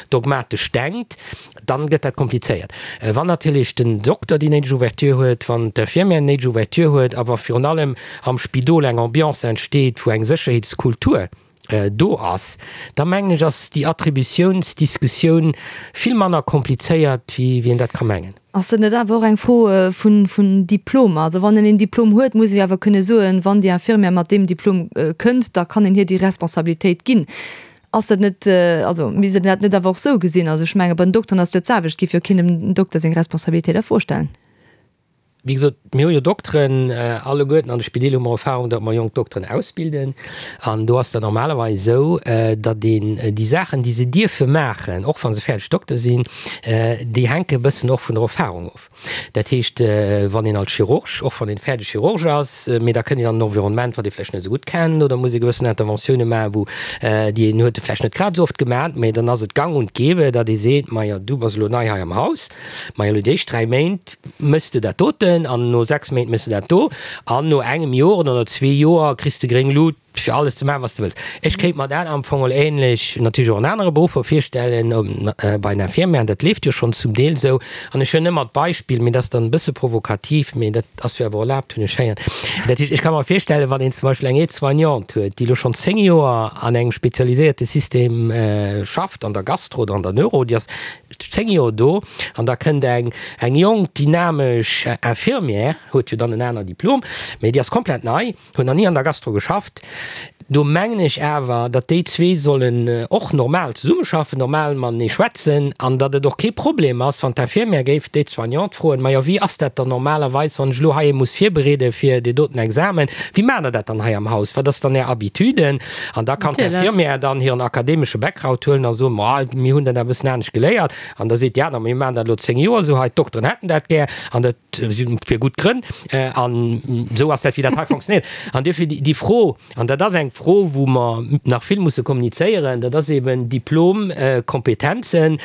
dogmatesch denkt, dann gëtt dat komplizéiert. Wann natierlech den Dokter déi néideg Ouverture huet, wann d'Infirmière déi néideg Ouverture huet a wa virun allem am Spidol eng Ambiance entsteet, wou eng Sécherheetskultur do ass, da mengen ech, ass déi Attributiounsdiskussioun vill manner komplizéiert, wéi een dat ka mengen. Ass dat net awer och eng Fro vun Diplomer? Also wann een een Diplom huet, muss ee jo awer kënne soen, wann déi Infirmière mat deem Diplom kënnt, da kann een hir déi Responsabilitéit ginn. Ass dat net, also misst een dat net awer och esou gesinn? Also ech menge bei den Dokteren ass et jo d'selwecht, et géif jo keen dem Dokter seng Responsabilitéit a Fro stellen. Wéi gesot, mir hu jo Dokteren alleguerten an de Spideel hu mer Erfahrung, datt mer jonk Dokteren ausbilden. An do ass dat normalerweis esou, datt een déi Saachen, déi se dierfe maachen, och wa se fäerdeg Dokter sinn, déi hänke e bëssen och vun der Erfahrung of. Dat heescht, wann een als Chirurg, och wann een fäerdeg Chirurg ass, mee da kënnt een an en Environnement, wat ee vläicht net esou gutt kennt oder muss ee gewëssen Interventioune maachen, wou déi een huet e vläicht net grad esou oft gemaach, mee dann ass et gang und gäbe, datt ee seet, Majo, du bass elo nei hei am Haus, majo elo déi éischt 3 Méint, Méchs de dat doten an no 6 Méint méchs de dat do an no engem Joer oder no zwee Joer kriss de gréng Lut fir alles ze maachen, wat s de wëlls. Ech kéint mer dat am Fong och ähnlech natierlech och an anere Beruffer virstellen, bei den Infirmièren, dat leeft jo schonn zum Deel esou. An ech hunn ëmmer d'Beispill, mee dat ass dann e bësse provokativ, mee dat ass jo awer erlaabt, hunn ech héieren, dat heescht, ech ka mer virstellen, wann een zum Beispill eng Aide-soignante huet, déi elo schonn 10 Joer an engem spezialiséierte System schafft, an der Gastro oder an der Neuro, déi ass 10 Joer do an da kënnt eng eng jonk dynamesch Infirmière, huet jo dann en aner Diplom, mee déi ass komplett nei, huet nach ni an der Gastro geschafft. Do mengen ech awer, datt déi zwee sollen och normal zesummeschaffen, normal matenee schwätzen an datt et och kee Problem ass, wann d'Infirmière géif d'Aide-soignante froen, Majo, wéi ass dat dann normalerweis, wann ech elo hei ee muss virbereede fir dee doten Examen, wéi maacht Der dat dann hei am Haus, wat ass dann Är Habitude? An da kann d'Infirmière dann hiren akademesche Background huelen a soen, Ma, mir hunn dat awer e bëssen anescht geléiert. An da seet déi aner, Ma mir maachen dat elo 10 Joer esou hei, d'Dokteren hätten dat gär an dat fir gutt Grënn. An esou ass dat, wéi dat hei fonctionnéiert. An duerfir déi Fro, an dat ass eng Fro, wou mer nach vill musse kommunizéieren, dat ass eben Diplom, Kompetenzen,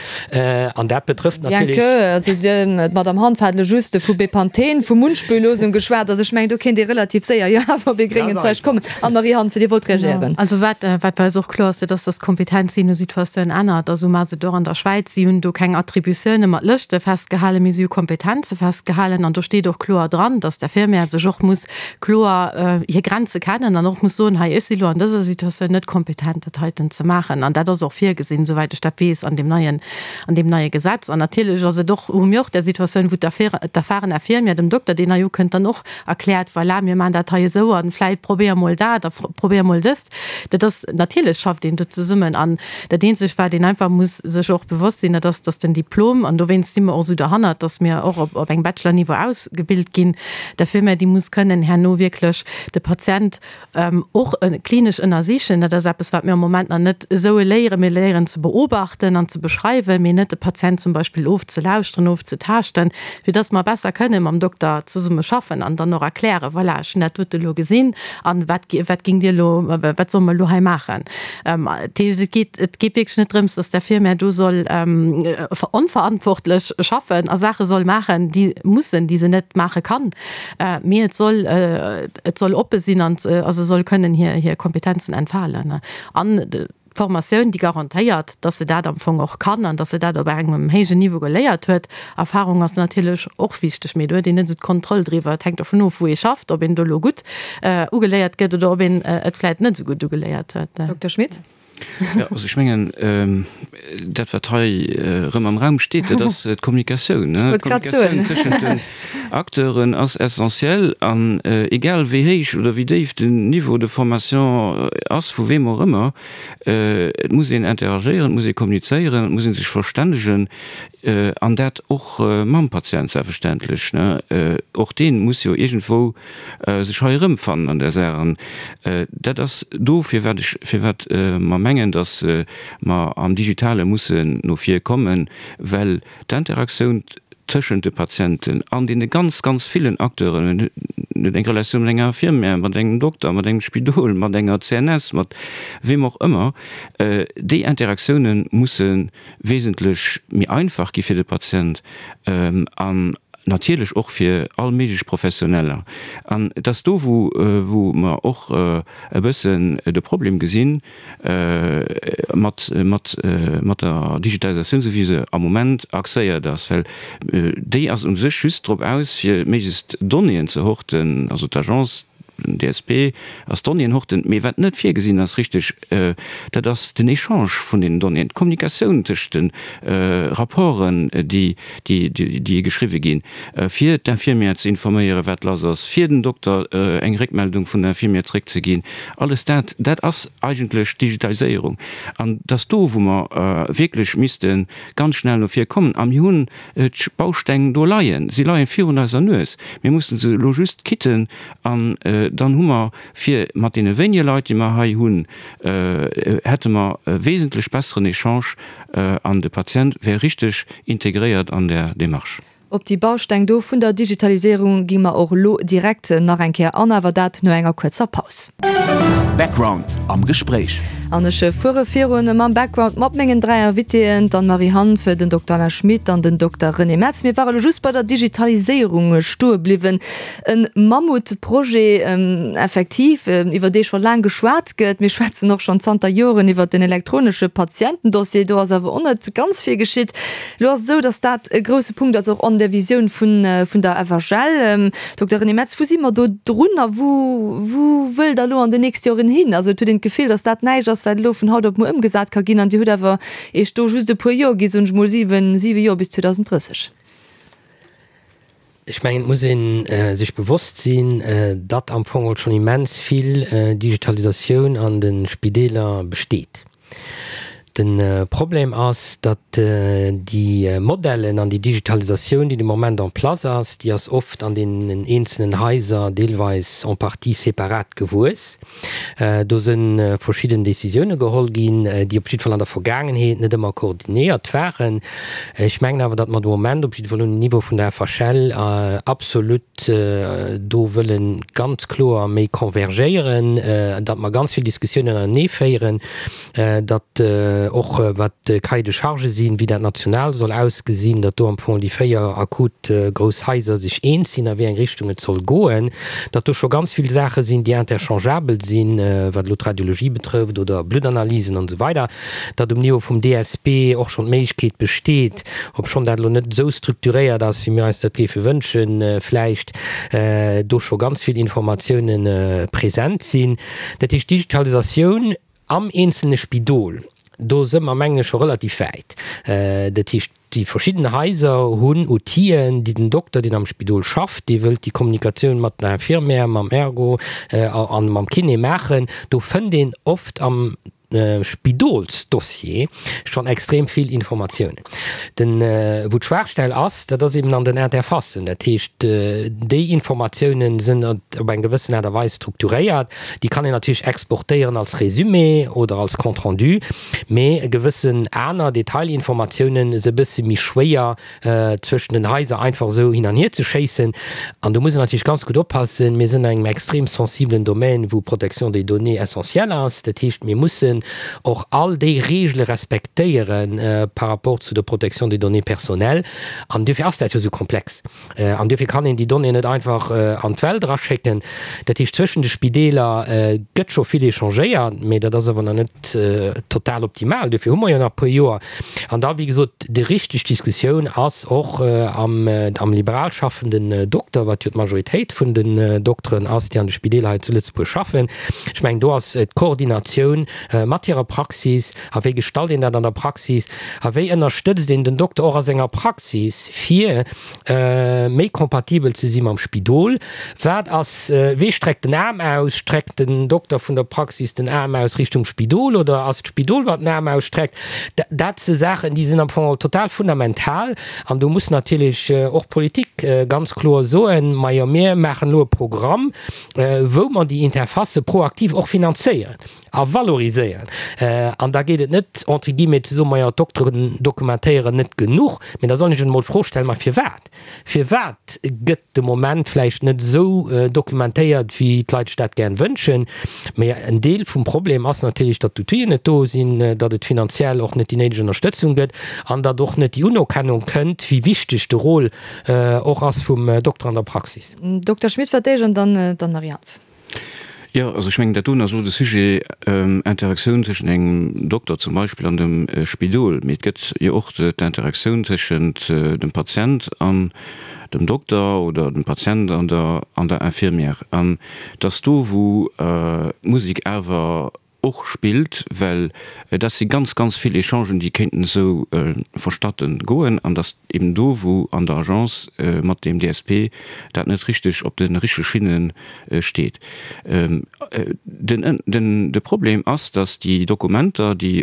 an dat betrëfft Bien natierlech. que, also d'Madame Hanff hat elo just vu Bepanthen, vu Mundspüllosung geschwat, also ech mengen, do kéint ee relativ séier jo awer op ee gréngen Zweig kommen. Anne-Marie Hanff, Dir wollt reagéieren. Also wat, wat bei eis och kloer ass, dat ass, dass d'Kompetenz jee no Situatioun ännert. Also maache se et och an der Schwäiz. Si hunn do keng Attributioune mat Lëschte festgehalen, mee si hu Kompetenze festgehalen. An do steet och kloer dran, dass d'Infirmière sech och muss kloer hir Grenze kennen an och muss soen, hei, ech si lo an dëser Situatioun net kompetent, dat heiten ze maachen. An dat ass och virgesinn, souwäit ech dat weess, an deem neien, an deem neie Gesetz. An natierlech ass et och, hu mir och där Situatioun, wou d'erfahren Infirmière dem Dokter, deen hei ukënnt, dann och erkläert, voilà, mir maachen dat hei esou a vläit probéier mol dat a probéier mol dëst. Dat ass, natierlech schafft een do zesummen. An dat Eenzegt, wat een einfach muss sech och bewosst sinn, dat ass, dass den Diplom, an dowéinst si mer och esou derhannert, dass mir och op engem Bachelor-Niveau ausgebilt ginn, d'Infirmière, déi muss kënnen herno wierklech de Patient och klinesch ënnersichen. Dat ass eppes, wat mir am Moment nach net esou léieren. Mir léieren ze beobachten an ze beschreiwen, mee net de Patient zum Beispill ofzelauschteren, ofzetaaschten, fir dass mer besser kënne mam Dokter zesumme schaffen an dann och erklären, voilà, ech hunn dat dote elo gesinn an wat, wat géingt Dir elo, wat solle mer elo hei maachen? Dat heescht, et geet, et geet wierklech net drëms, dass d'Infirmière do soll onverantwortlech schaffen a Saache soll maachen, déi mussen, déi se net maache kann, mee et soll, et soll oppe sinn an a se soll kënnen hir, hir Kompetenzen entfalen. An d'Formatioun, déi garantéiert, dass se dat am Fong och kann an dass se dat op engem héijen Niveau geléiert huet. Erfahrung ass natierlech och wichteg, mee do huet een net esou d'Kontroll driwwer. Et hänkt dovun of, wou ee schafft, ob een do elo gutt ugeléiert gëtt oder ob een et vläit net esou gutt ugeléiert huet. Dokter Schmit. Jo, also ech mengen, dat wat hei erëm am Raum steet, dat ass d'Kommunikatioun. Ech wollt grad soen. D'Kommunikatioun tëschent den Acteuren ass essentiell an egal wéi héich oder wéi déif den Niveau de formation ass, vu weem och ëmmer, et muss een interagéieren, et muss ee kommunizéieren, et muss ee sech verstännegen an dat och mam Patient selbstverständlech. Och dee muss jo iergendwou sech hei erëmfannen an där Saach. An dat ass do, firwat ech, firwat mer mengen, datt mer am Digitale mussen no vir kommen, well d'Interaktioun tëschent de Patienten an deene ganz, ganz villen Acteuren, en huet eng Relatioun mat enger Infirmière, mat engem Dokter, mat engem Spidol, mat enger CNS, mat weem och ëmmer, déi Interaktioune musse wesentlech méi einfach gi fir de Patient. An. natierlech och fir all méiglech Professioneller. An et ass do, wou, wou mer och e bëssen de Problem gesinn mat, mat, mat der Digitalisatioun, esou wéi se am Moment axéiert ass, well déi ass u sech just drop aus, fir méiglechst Donnéeën ze horten, also d'Agence, Den DSP ass Donnéeën horten, mee wat net virgesinn ass richteg, dat ass den Echange vun deenen Donnéeën, d'Kommunikatioun tëscht de Rapporten, déi geschriwwe ginn, fir d'Infirmière ze informéieren, wat lass ass, fir den Dokter eng Réckmeldung vun der Infirmière zréckzeginn. Alles dat, dat ass eigentlech Digitaliséierung. An et ass do, wou mer wierklech misste ganz schnell no vir kommen. A mir hunn D'Bausteng do leien, si leien virun eiser Nues. Mir mussen se elo just kitten an dann hu mer fir mat deene wéinege Leit, déi mer hei hunn, hätte mer e wesentlech besseren Echange an de Patient wär richteg integréiert an där Démarche. Op déi Bausteng do vun der Digitaliséierung gi mer och elo direkt nach eng Kéier an, awer dat no enger kuerzer Paus. Background am Gespréich. An ech fuere virun mam Background mat mengen 3 Invitéen, d'Anne-Marie Hanff, den Dokter Alain Schmit an den Dokter René Metz. Mir ware elo just bei der Digitaliséierung stoe bliwwen. E Mammutprojet effektiv, iwwer dee scho laang geschwat gëtt. Mir schwätzen och schonn zanter Joren iwwer den elektronesche Patientendossier. Do ass awer och net ganz vill geschitt. Elo ass et esou, datt dat e grousse Punkt ass och an der Visioun vun der FHL. Dokter René Metz, wou si mer do drun a wou, wou wëllt Der elo an den nächste Joren hin? Also et huet een d'Gefill, datt dat näischt ass, wat elo vun haut op muer ëmgesat ka ginn an Dir hutt awer Iech do just e puer Joer gi, soen ech mol siwen, siwe Joer bis 2030. Ech mengen, et muss ee sech bewosst sinn, datt am Fong schonn immens vill Digitalisatioun an de Spideeler besteet. De Problem ass, datt déi Modellen an déi Digitalisatioun, déi de Moment en place ass, déi ass oft an deenen eenzelnen Haiser deelweis en partie separat gewuess. Do si verschidden Décisioune geholl ginn, déi op jidde Fall an der Vergaangenheet net ëmmer koordinéiert waren. Ech mengen awer, datt mer de Moment op jidde Fall um Niveau vun der FHL absolut do wëlle ganz kloer méi convergéieren, datt mer ganz vill Diskussiounen anenee féieren, datt och wat d'Cahiers de charges sinn, wéi dat national soll ausgesinn, datt do am Fong déi 4 akut grouss Haiser sech eens sinn a wéi eng Richtung et soll goen, datt do scho ganz vill Saache sinn, déi interchangeabel sinn, wat elo d'Radiologie betrëfft oder Bluttanalysen an esou weider, datt um Niveau vum DSP och schonn d'Méiglechkeet besteet, obschonn dat elo net esou strukturiert ass, wéi mir eis dat géife wënschen, vläicht do scho ganz vill Informatiounen present sinn. Dat heescht, d'Digitalisatioun am eenzelne Spidol, do si mer, mengen ech, scho relativ wäit. Dat heescht, déi verschidden Haiser hunn Outiller, déi den Dokter, deen am Spidol schafft, dee wëllt déi Kommunikatioun mat der Infirmière, mam Ergo a mam Kiné maachen, do fënnt een oft am Spidolsdossier schonn extrem vill Informatiounen. Den, wou d'Schwaachstell ass, dat ass eben an den Interfacen. Dat heescht, déi Informatiounen sinn op eng gewëssen Aart a Weis strukturéiert. Déi kann een natierlech exportéieren als Résumé oder als Compte rendu, mee gewëssen aner Detailinformatiounen se e bësse méi schwéier zwëschen den Haiser einfach esou hin an hier ze schéissen. An do muss een natierlech ganz gutt oppassen. Mir sinn an engem extrem sensibelen Domaine, wou Protection des données essentiell ass. Dat heescht, mir mussen och all déi Regele respektéiere par rapport zu der Protection des données personnelles. An duerfir ass dat jo esou komplex. An duerfir kann een déi Donnéeën net einfach an d'Welt eraschécken. Dat heescht, zwëschen de Spideeler gëtt scho vill échangéiert, mee dat ass awer nach net total optimal. Duerfir hu mer jo nach e puer Joer. An da, wéi gesot, déi richteg Diskussioun ass och am am liberal schaffenden Dokter, wat jo d'Majoritéit vun den Dokteren ass, déi an de Spideeler hei zu Lëtzebuerg schaffen. Ech mengen, do ass d'Koordinatioun mat hirer Praxis, a wéi gestalt een dat an der Praxis, a wéi ënnerstëtzt een den Dokter och a senger Praxis, fir méi kompatibel ze si mam Spidol. Wat ass, wee streckt den Aarm aus? Streckt den Dokter vun der Praxis den Aarm aus Richtung Spidol oder ass d'Spidol, wat den Aarm ausstreckt? Dat si Saachen, déi sinn am Fong total fundamental an do muss natierlech och d'Politik ganz kloer soen, Majo, mir maachen elo e Programm, wou mer déi Interfacë proaktiv och finanzéieren a valoriséieren. dokumentéieren. An da geet et net, entre guillemets, ze soen, majo, d'Dokteren dokumentéieren net genuch, mee da soll ech emol d'Fro stellen, ma firwat? Firwat gëtt de Moment vläicht net esou dokumentéiert, wéi d'Leit sech dat gären wënschen? Mee en Deel vum Problem ass natierlech, datt d'Outill'en net do sinn, datt et finanziell och net déi néideg Ënnerstëtzung gëtt an datt och net déi Unerkennung kënnt, wéi wichteg de Rôle och ass vum Dokter an der Praxis. Dokter Schmit fir d'éischt an dann d'Anne-Marie Hanff. Jo, also ech mengen, dat doen ass elo de Sujet Interaktioun tëschent engem Dokter zum Beispill an dem Spidol. Mee et gëtt jo och d'Interaktioun tëschent dem Patient an dem Dokter oder dem Patient an der an der Infirmière. An et ass do, wou d'Musek awer och spillt, well dat si ganz, ganz vill Echangen, déi kéinten esou vonstatten goen, an dass eben do, wou an der Agence mat deem DSP dat net richteg op de richtege Schinne steet. Den, de Problem ass, dass déi Dokumenter, déi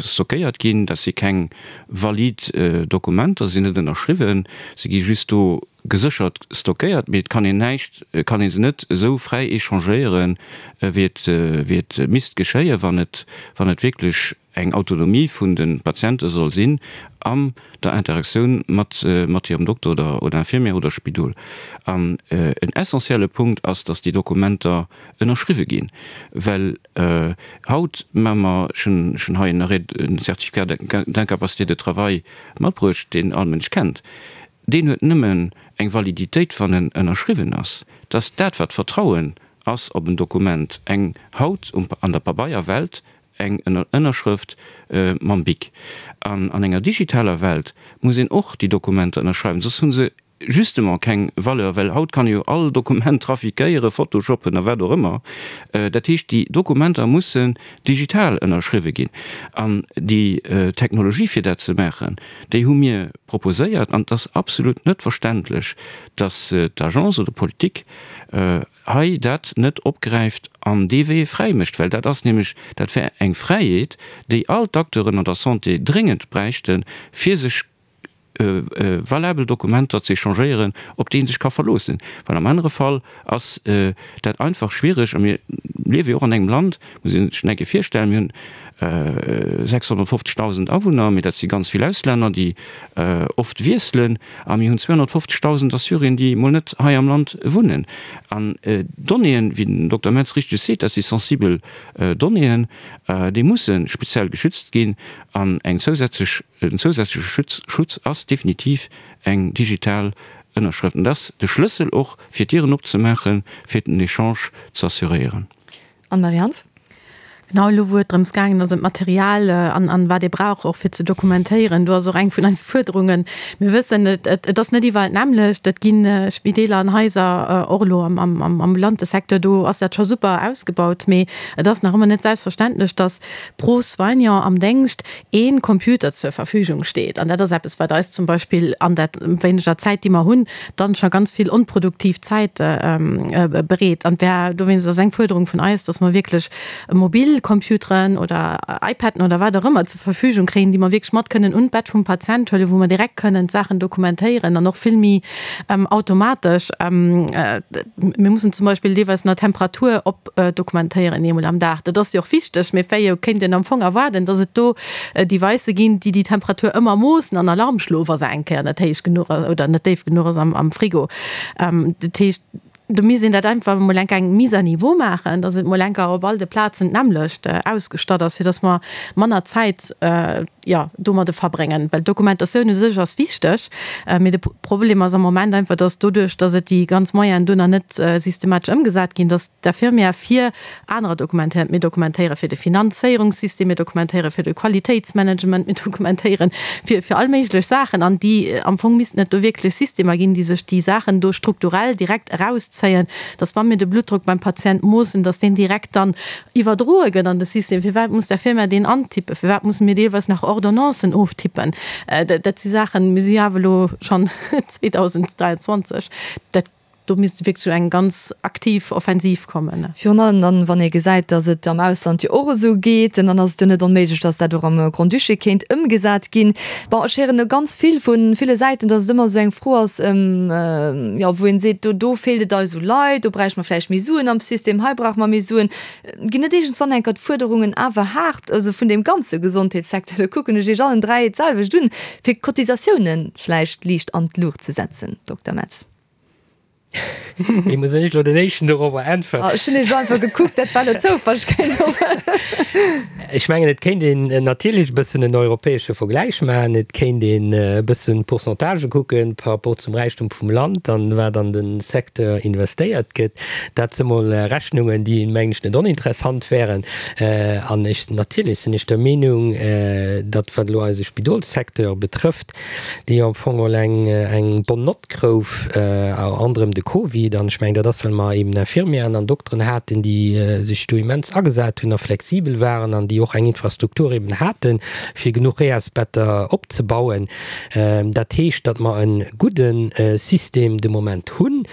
stockéiert ginn, dat si keng valid Dokumenter, se sinn net ënnerschriwwen, se gi just do geséchert stockéiert, mee et kann een näischt, kann ee se net esou fräi échangéieren, wéi et, wéi et misst geschéien, wann et, wann et wierklech eng Autonomie vun de Patiente soll sinn an der Interaktioun mat, mat hirem Dokter oder, oder Infirmière oder Spidol. An en essentielle Punkt ass, dass déi Dokumenter ënnerschriwwe ginn, well haut maache mer, ech hunn, ech hunn hei en Arrêt, en Certificat d'incapacité de travail matbruecht, deen all Mënsch kennt, Deen huet nëmmen eng Validitéit, wann en ënnerschriwwen ass. Dat ass dat, wat Vertrauen ass op en Dokument, eng haut an der Pabeierwelt eng Ënnerschrëft mam Bic. An an enger digitaler Welt muss een och déi Dokumenter ënnerschreiwen, soss hu se justement keng Valeur, well haut kann ee jo all Dokument trafiquéieren, photoshoppen a wat och ëmmer. Dat heescht, déi Dokumenter mussen digital ënnerschriwwe ginn. An déi Technologie, fir dat ze maachen, déi hu mir proposéiert. An et ass absolut net verständlech, datt d'Agence oder d'Politik hei dat net opgräift an dee Wee fräi mécht, well dat ass nämlech, dat wär eng Fräiheet, déi all d'Acteuren an der Santé dréngend bräichten, fir sech valabel Dokumenter ze échangéieren, op déi ee sech ka verloossen, well am anere Fall ass dat einfach schwiereg. A mir liewe jo och an engem Land, muss ee sech eng Kéier virstellen, mir hunn 650.000 Awunner, mee dat si ganz vill Auslänner, déi oft wiesselen, a mir hunn 250.000 Assyrien, déi mol net hei am Land wunnen. An d'Donnéeën, wéi den Dokter Metz richteg seet, dat si sensibel Donnéeën, déi musse speziell geschützt ginn an eng zousätzlech En zousätzleche Schutz ass definitiv eng digital Ënnerschrëft. An dat ass de Schlëssel och, fir d'Dieren opzemaachen, fir den Echange ze assuréieren. Anne-Marie Hanff. Genau, elo wou et drëms gaangen ass, ëm d'Material an an wat ee brauch och fir ze dokumentéieren, do ass och eng vun eise Fuerderungen, mir wëssen, et et ass net iwwerall d'nämmlecht, et gi Spideeler an Haiser, och elo am am ambulante Secteur, do ass dat scho super ausgebaut, mee et ass nach ëmmer net selbstverständlech, datt pro Soignant am Déngscht een Computer zur Verfügung steet. An dat ass eppes, wat eis zum Beispill an der wéineger Zäit, déi mer hunn, dann scho ganz vill onproduktiv Zäit bereet. An wär dowéinst ass eng Fuerderung vun eis, dass mer wierklech mobil Computeren oder iPaden oder wat och ëmmer zur Verfügung kréien, déi mer wierklech mat kënnen un d'Bett vum Patient huelen, wou mer direkt kënnen d'Saachen dokumentéieren an och vill méi automatesch. Mir mussen zum Beispill deelweis nach d'Temperatur op dokumentéieren eemol am Dag. Dat ass jo och wichteg, mee wéi jo kéint een am Fong erwaarden, datt et do Devicë ginn, déi déi Temperatur ëmmer moossen an Alarm schloen, wa se eng Kéier net héich genuch ass oder net déif genuch ass am Frigo. Dat heescht, do misst een dat einfach emol enk eng Mise à niveau maachen, datt et mol enker op all de Plazen d'nämmlecht ausgestatt ass, fir datt mer manner Zäit, jo, domadde verbréngen. Well d'Dokumentatioun u sech ass wichteg, mee de Problem ass am Moment einfach, dass doduerch, dass et déi ganz Moyenen do nach net systematesch ëmgesat ginn, dass d'Infirmière fir anerer dokumentéiert. Mir dokumentéiere fir de Finanzéierungssystem, mir dokumentéiere fir de Qualitéitsmanagement, mir dokumentéiere fir, fir all méiglech Saachen. An déi, am Fong missten et do wierklech Systemer ginn, déi sech déi Saachen do strukturell direkt erauszéien, dass wa mir de Bluttdrock beim Patient moossen, dass deen direkt dann iwwerdroe gëtt an de System, firwat muss der Firma deen antippen, firwat musse mir deelweis nach Ordonnancen oftippen, dat si Saachen, mir si jo awer elo schonn 2023, dat. Do misst wierklech eng ganz aktiv Offensiv kommen. Virun allem dann, wann ee gesäit, datt et am Ausland jo och esou geet, dann ass et jo net onméiglech, datt dat och am Grand-Duché kéint ëmgesat ginn. Bon, ech héieren elo ganz vill vu ville Säiten, datt et ëmmer esou eng Fro ass, jo, wou een seet, do, do feelt et eis u Leit, do bräichte mer vläicht méi Suen am System, hei brauche mer méi Suen. Ginn net iergendswann enker d'Fuerderungen awer haart, also vun deem ganze Gesondheetssecteur, do kucken ech Iech allen 3 d'selwecht un, fir d'Cotisatiounen vläicht liicht an d'Luucht ze setzen, Dokter Metz? Wéi muss ech elo den éischten dorobber äntweren? Ech hunn Iech elo einfach gekuckt, dat war elo Zoufall, ech kéint och. Ech mengen, et kéint een natierlech e bëssen en europäesche Vergläich maachen. Et kéint een e bëssen d'Pourcentagë kucken par rapport zum Räichtum vum Land an wat an de Secteur investéiert gëtt. Dat si mol Rechnungen, déi, mengen ech, net oninteressant wären. An ech, natierlech sinn ech der Meenung, datt, wat elo eise Spidolssecteur betrëfft, déi jo am Fong geholl eng, eng bonne note grouf, anderem de Covid, an ech mengen, dat ass, well mer eben Infirmieren an Dokteren haten, déi sech do immens agesat hunn a flexibel waren an déi och eng Infrastruktur eben haten, fir genuch Reasbetter opzebauen. Dat heescht, datt mer e gudde System de Moment hunn,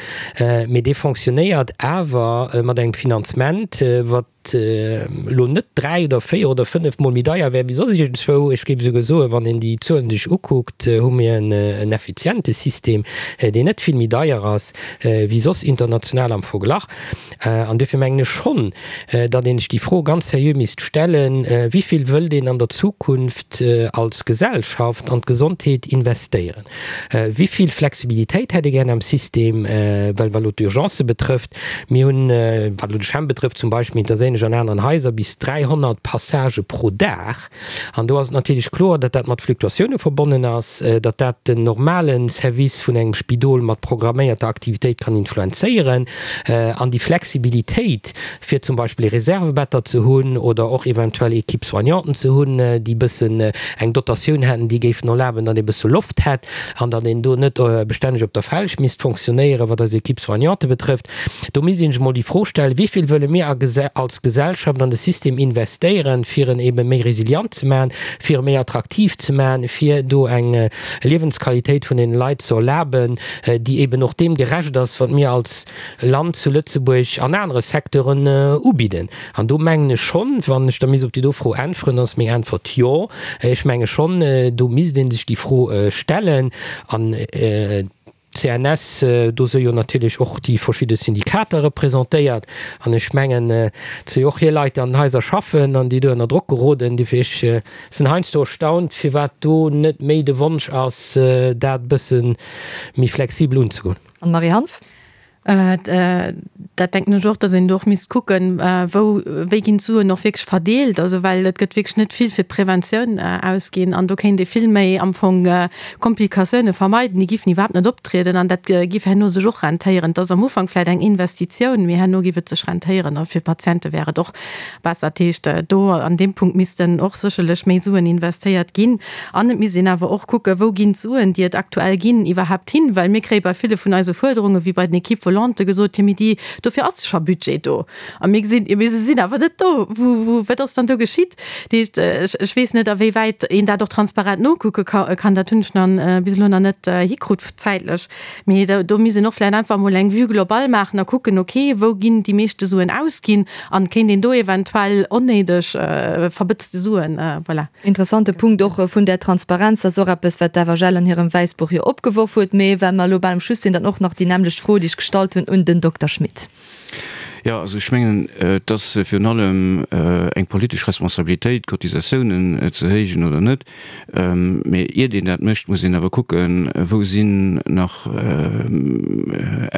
mee dee fonctionnéiert awer mat engem Finanzement, wat, elo net 3 oder 4 oder 5 mol méi deier wär wéi soss iergendzwou. Ech géif esouguer soen, wann een déi Zuelen sech ukuckt, hu mir en effiziente System, deen net vill méi deier ass wéi soss international am Verglach. An duerfir mengen ech schonn, datt ee sech déi Fro ganz seriö misst stellen, Wéi vill wëllt een an der Zukunft als Gesellschaft an d'Gesondheet investéieren? Wéi vill Flexibilitéit hätt ee gären am System, well wat elo d'Urgencë betrëfft, mir hunn, wat elo de CHEM betrëfft zum Beispill, mee et ass ähnlech an aneren Haiser, bis 300 Passagë pro Dag. An do ass et natierlech kloer, datt dat mat Fluktuatioune verbonnen ass, datt dat den normale Service vun engem Spidol mat programméierter Aktivitéit kann influenzéieren. An déi Flexibilitéit, fir zum Beispill Reservebetter ze hunn oder och eventuell Équipe-soignanten ze hunn, déi bëssen eng Dotatioun hätten, déi géifen erlaben, datt ee bësse Loft hätt an datt een do net bestänneg op der Felg misst fonctionnéieren, wat eis Équipe-soignante betrëfft. Do misst ee sech emol déi Fro stellen, Wéi vill wëlle mir als Gesellschaft an de System investéieren, fir en ebe méi resilient ze maachen, fir e méi attraktiv ze maachen, fir do eng Liewensqualitéit vun den Leit ze erlaben, déi eben och deem gerecht ass, wat mir als Land zu Lëtzebuerg an anere Secteuren ubidden. An do mengen ech schonn, wann ech da misst op déi do Fro äntweren, ass meng Äntwert Jo. Ech menge schonn, do misst ee sech déi Fro stellen. An d'CNS, do si jo natierlech och déi verschidde Syndikater representéiert. An ech mengen, et si jo och hir Leit, déi an den Haiser schaffen an déi do ënner Drock geroden. Dofir, ech sinn heiansdo erstaunt, firwat do net méi de Wonsch ass, dat e bësse méi flexibel unzegoen. Anne-Marie Hanff. Dat denken ech och, datt een do och misst kucken, wou, wéi ginn d'Suen och wierklech verdeelt. Also well et gëtt wierklech net vill fir d'Preventioun ausginn an do kéint ee vill méi am Fong Komplikatioune vermeiden, déi giffen iwwerhaapt net optrieden an dat giff herno sech och rentéieren. Et ass am Ufank vläicht eng Investitioun, mee herno giff et sech rentéieren a fir d'Patiente wär et och besser. Dat heescht, do an deem Punkt missten och sécherlech méi Suen investéiert ginn. An et misst een awer och kucken, wou ginn d'Suen, déi et aktuell ginn, iwwerhaapt hin? Well mir kréie bei ville vun eise Fuerderungen, wéi bei den Équipes volantes, gesot, jo mee déi, dofir ass scho Budget do. A mir gesinn, jo mee se sinn awer net do. Wou, wou, wat ass dann do geschitt? Dat heescht, ech, ech weess net, awéiwäit een dat och transparent nokucke kann. Dat hunn ech nach bis elo nach net hikrut zäitlech. Mee do misst een och vläicht einfach emol eng Vue globale maachen a kucken, okay, wou ginn déi meeschte Suen ausginn an kéint een do eventuell onnéideg verbëtzte Suen, voilà. Interessante Punkt och vun där Transparenz. Dat ass och eppes, wat d'FHL an hirem Wäissbuch jo opgeworf huet. Mee well mer elo bal um Schluss sinn, dann och nach déi nämmlecht Fro, déi ech gestallt hunn un den Dokter Schmit. Jo, also ech mengen, et ass virun allem eng politesch Responsabilitéit, d'Cotisatiounen ze héijen oder net. Mee iert een dat mécht, muss een awer kucken, wou sinn nach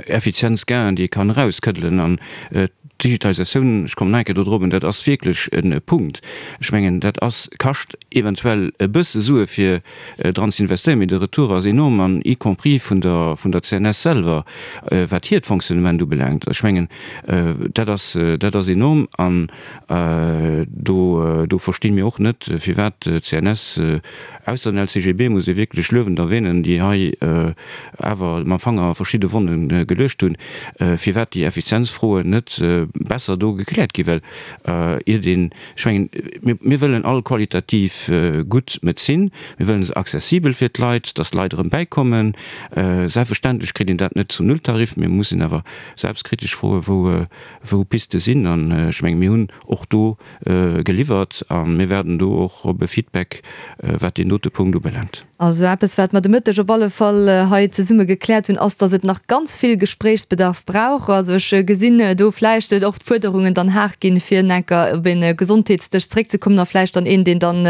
Effizienzgainen, déi ee kann erauskëddelen. An d'Digitalisatioun, ech kommen nach eng Kéier do drop, dat ass wierklech e Punkt. Ech mengen, dat ass, kascht eventuell e bësse Sue fir dran ze investéieren, mee de Retour ass enorm, an y compris vun der, vun der CNS selwer, wat hiert Fonctionnement ubelaangt. Ech mengen, dat ass, dat ass enorm. An do, do versti mir och net, firwat d'CNS, ausser den LCGB muss ee wierklech luewend erwähnen, déi hei awer mam Fanger verschidde Wonne geluecht hunn, firwat déi Effizienzfroen net. besser do gekläert ginn, well iert een, ech mengen, mir, mir wëllen all qualitativ gutt Medezin, mir wëllen se accessibel fir d'Leit, dass d'Leit erëm bäikommen. Selbstverständlech kritt een dat net zum Nulltarif, mee muss een awer selbstkritesch froen, wou, wou Piste sinn. An ech mengen, mir hunn och do geliwwert a mir waarden do och op e Feedback, wat deen dote Punkt ubelaangt. Also eppes, wat mer de Mëtteg op alle Fall hei zesumme gekläert hunn, ass, dass et nach ganz vill Gespréichsbedarf brauch. Also ech gesinn do vläicht och d'Fuerderungen dann haart ginn, fir enker op e Gesondheetsdësch zeréckzekommen a vläicht dann een, deen dann,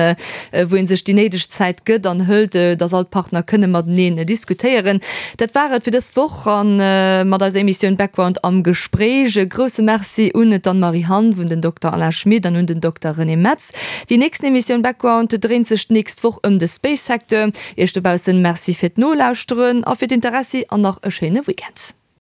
wou ee sech déi néideg Zäit gëtt an hëlt, dass all d'Partner kënne mateneen diskutéieren. Dat war et fir dës Woch a mat eiser Emissioun Background am Gespréich. E grousse Merci un d'Anne-Marie Hanff, un den Dokter Alain Schmit an un den Dokter René Metz. Déi nächsten Emissioun Background dréint sech d'nächst Woch ëm de Space Secteur. Iech dobaussen Merci fir d'Nolauschteren a fir d'Interessi an nach e schéine Weekend.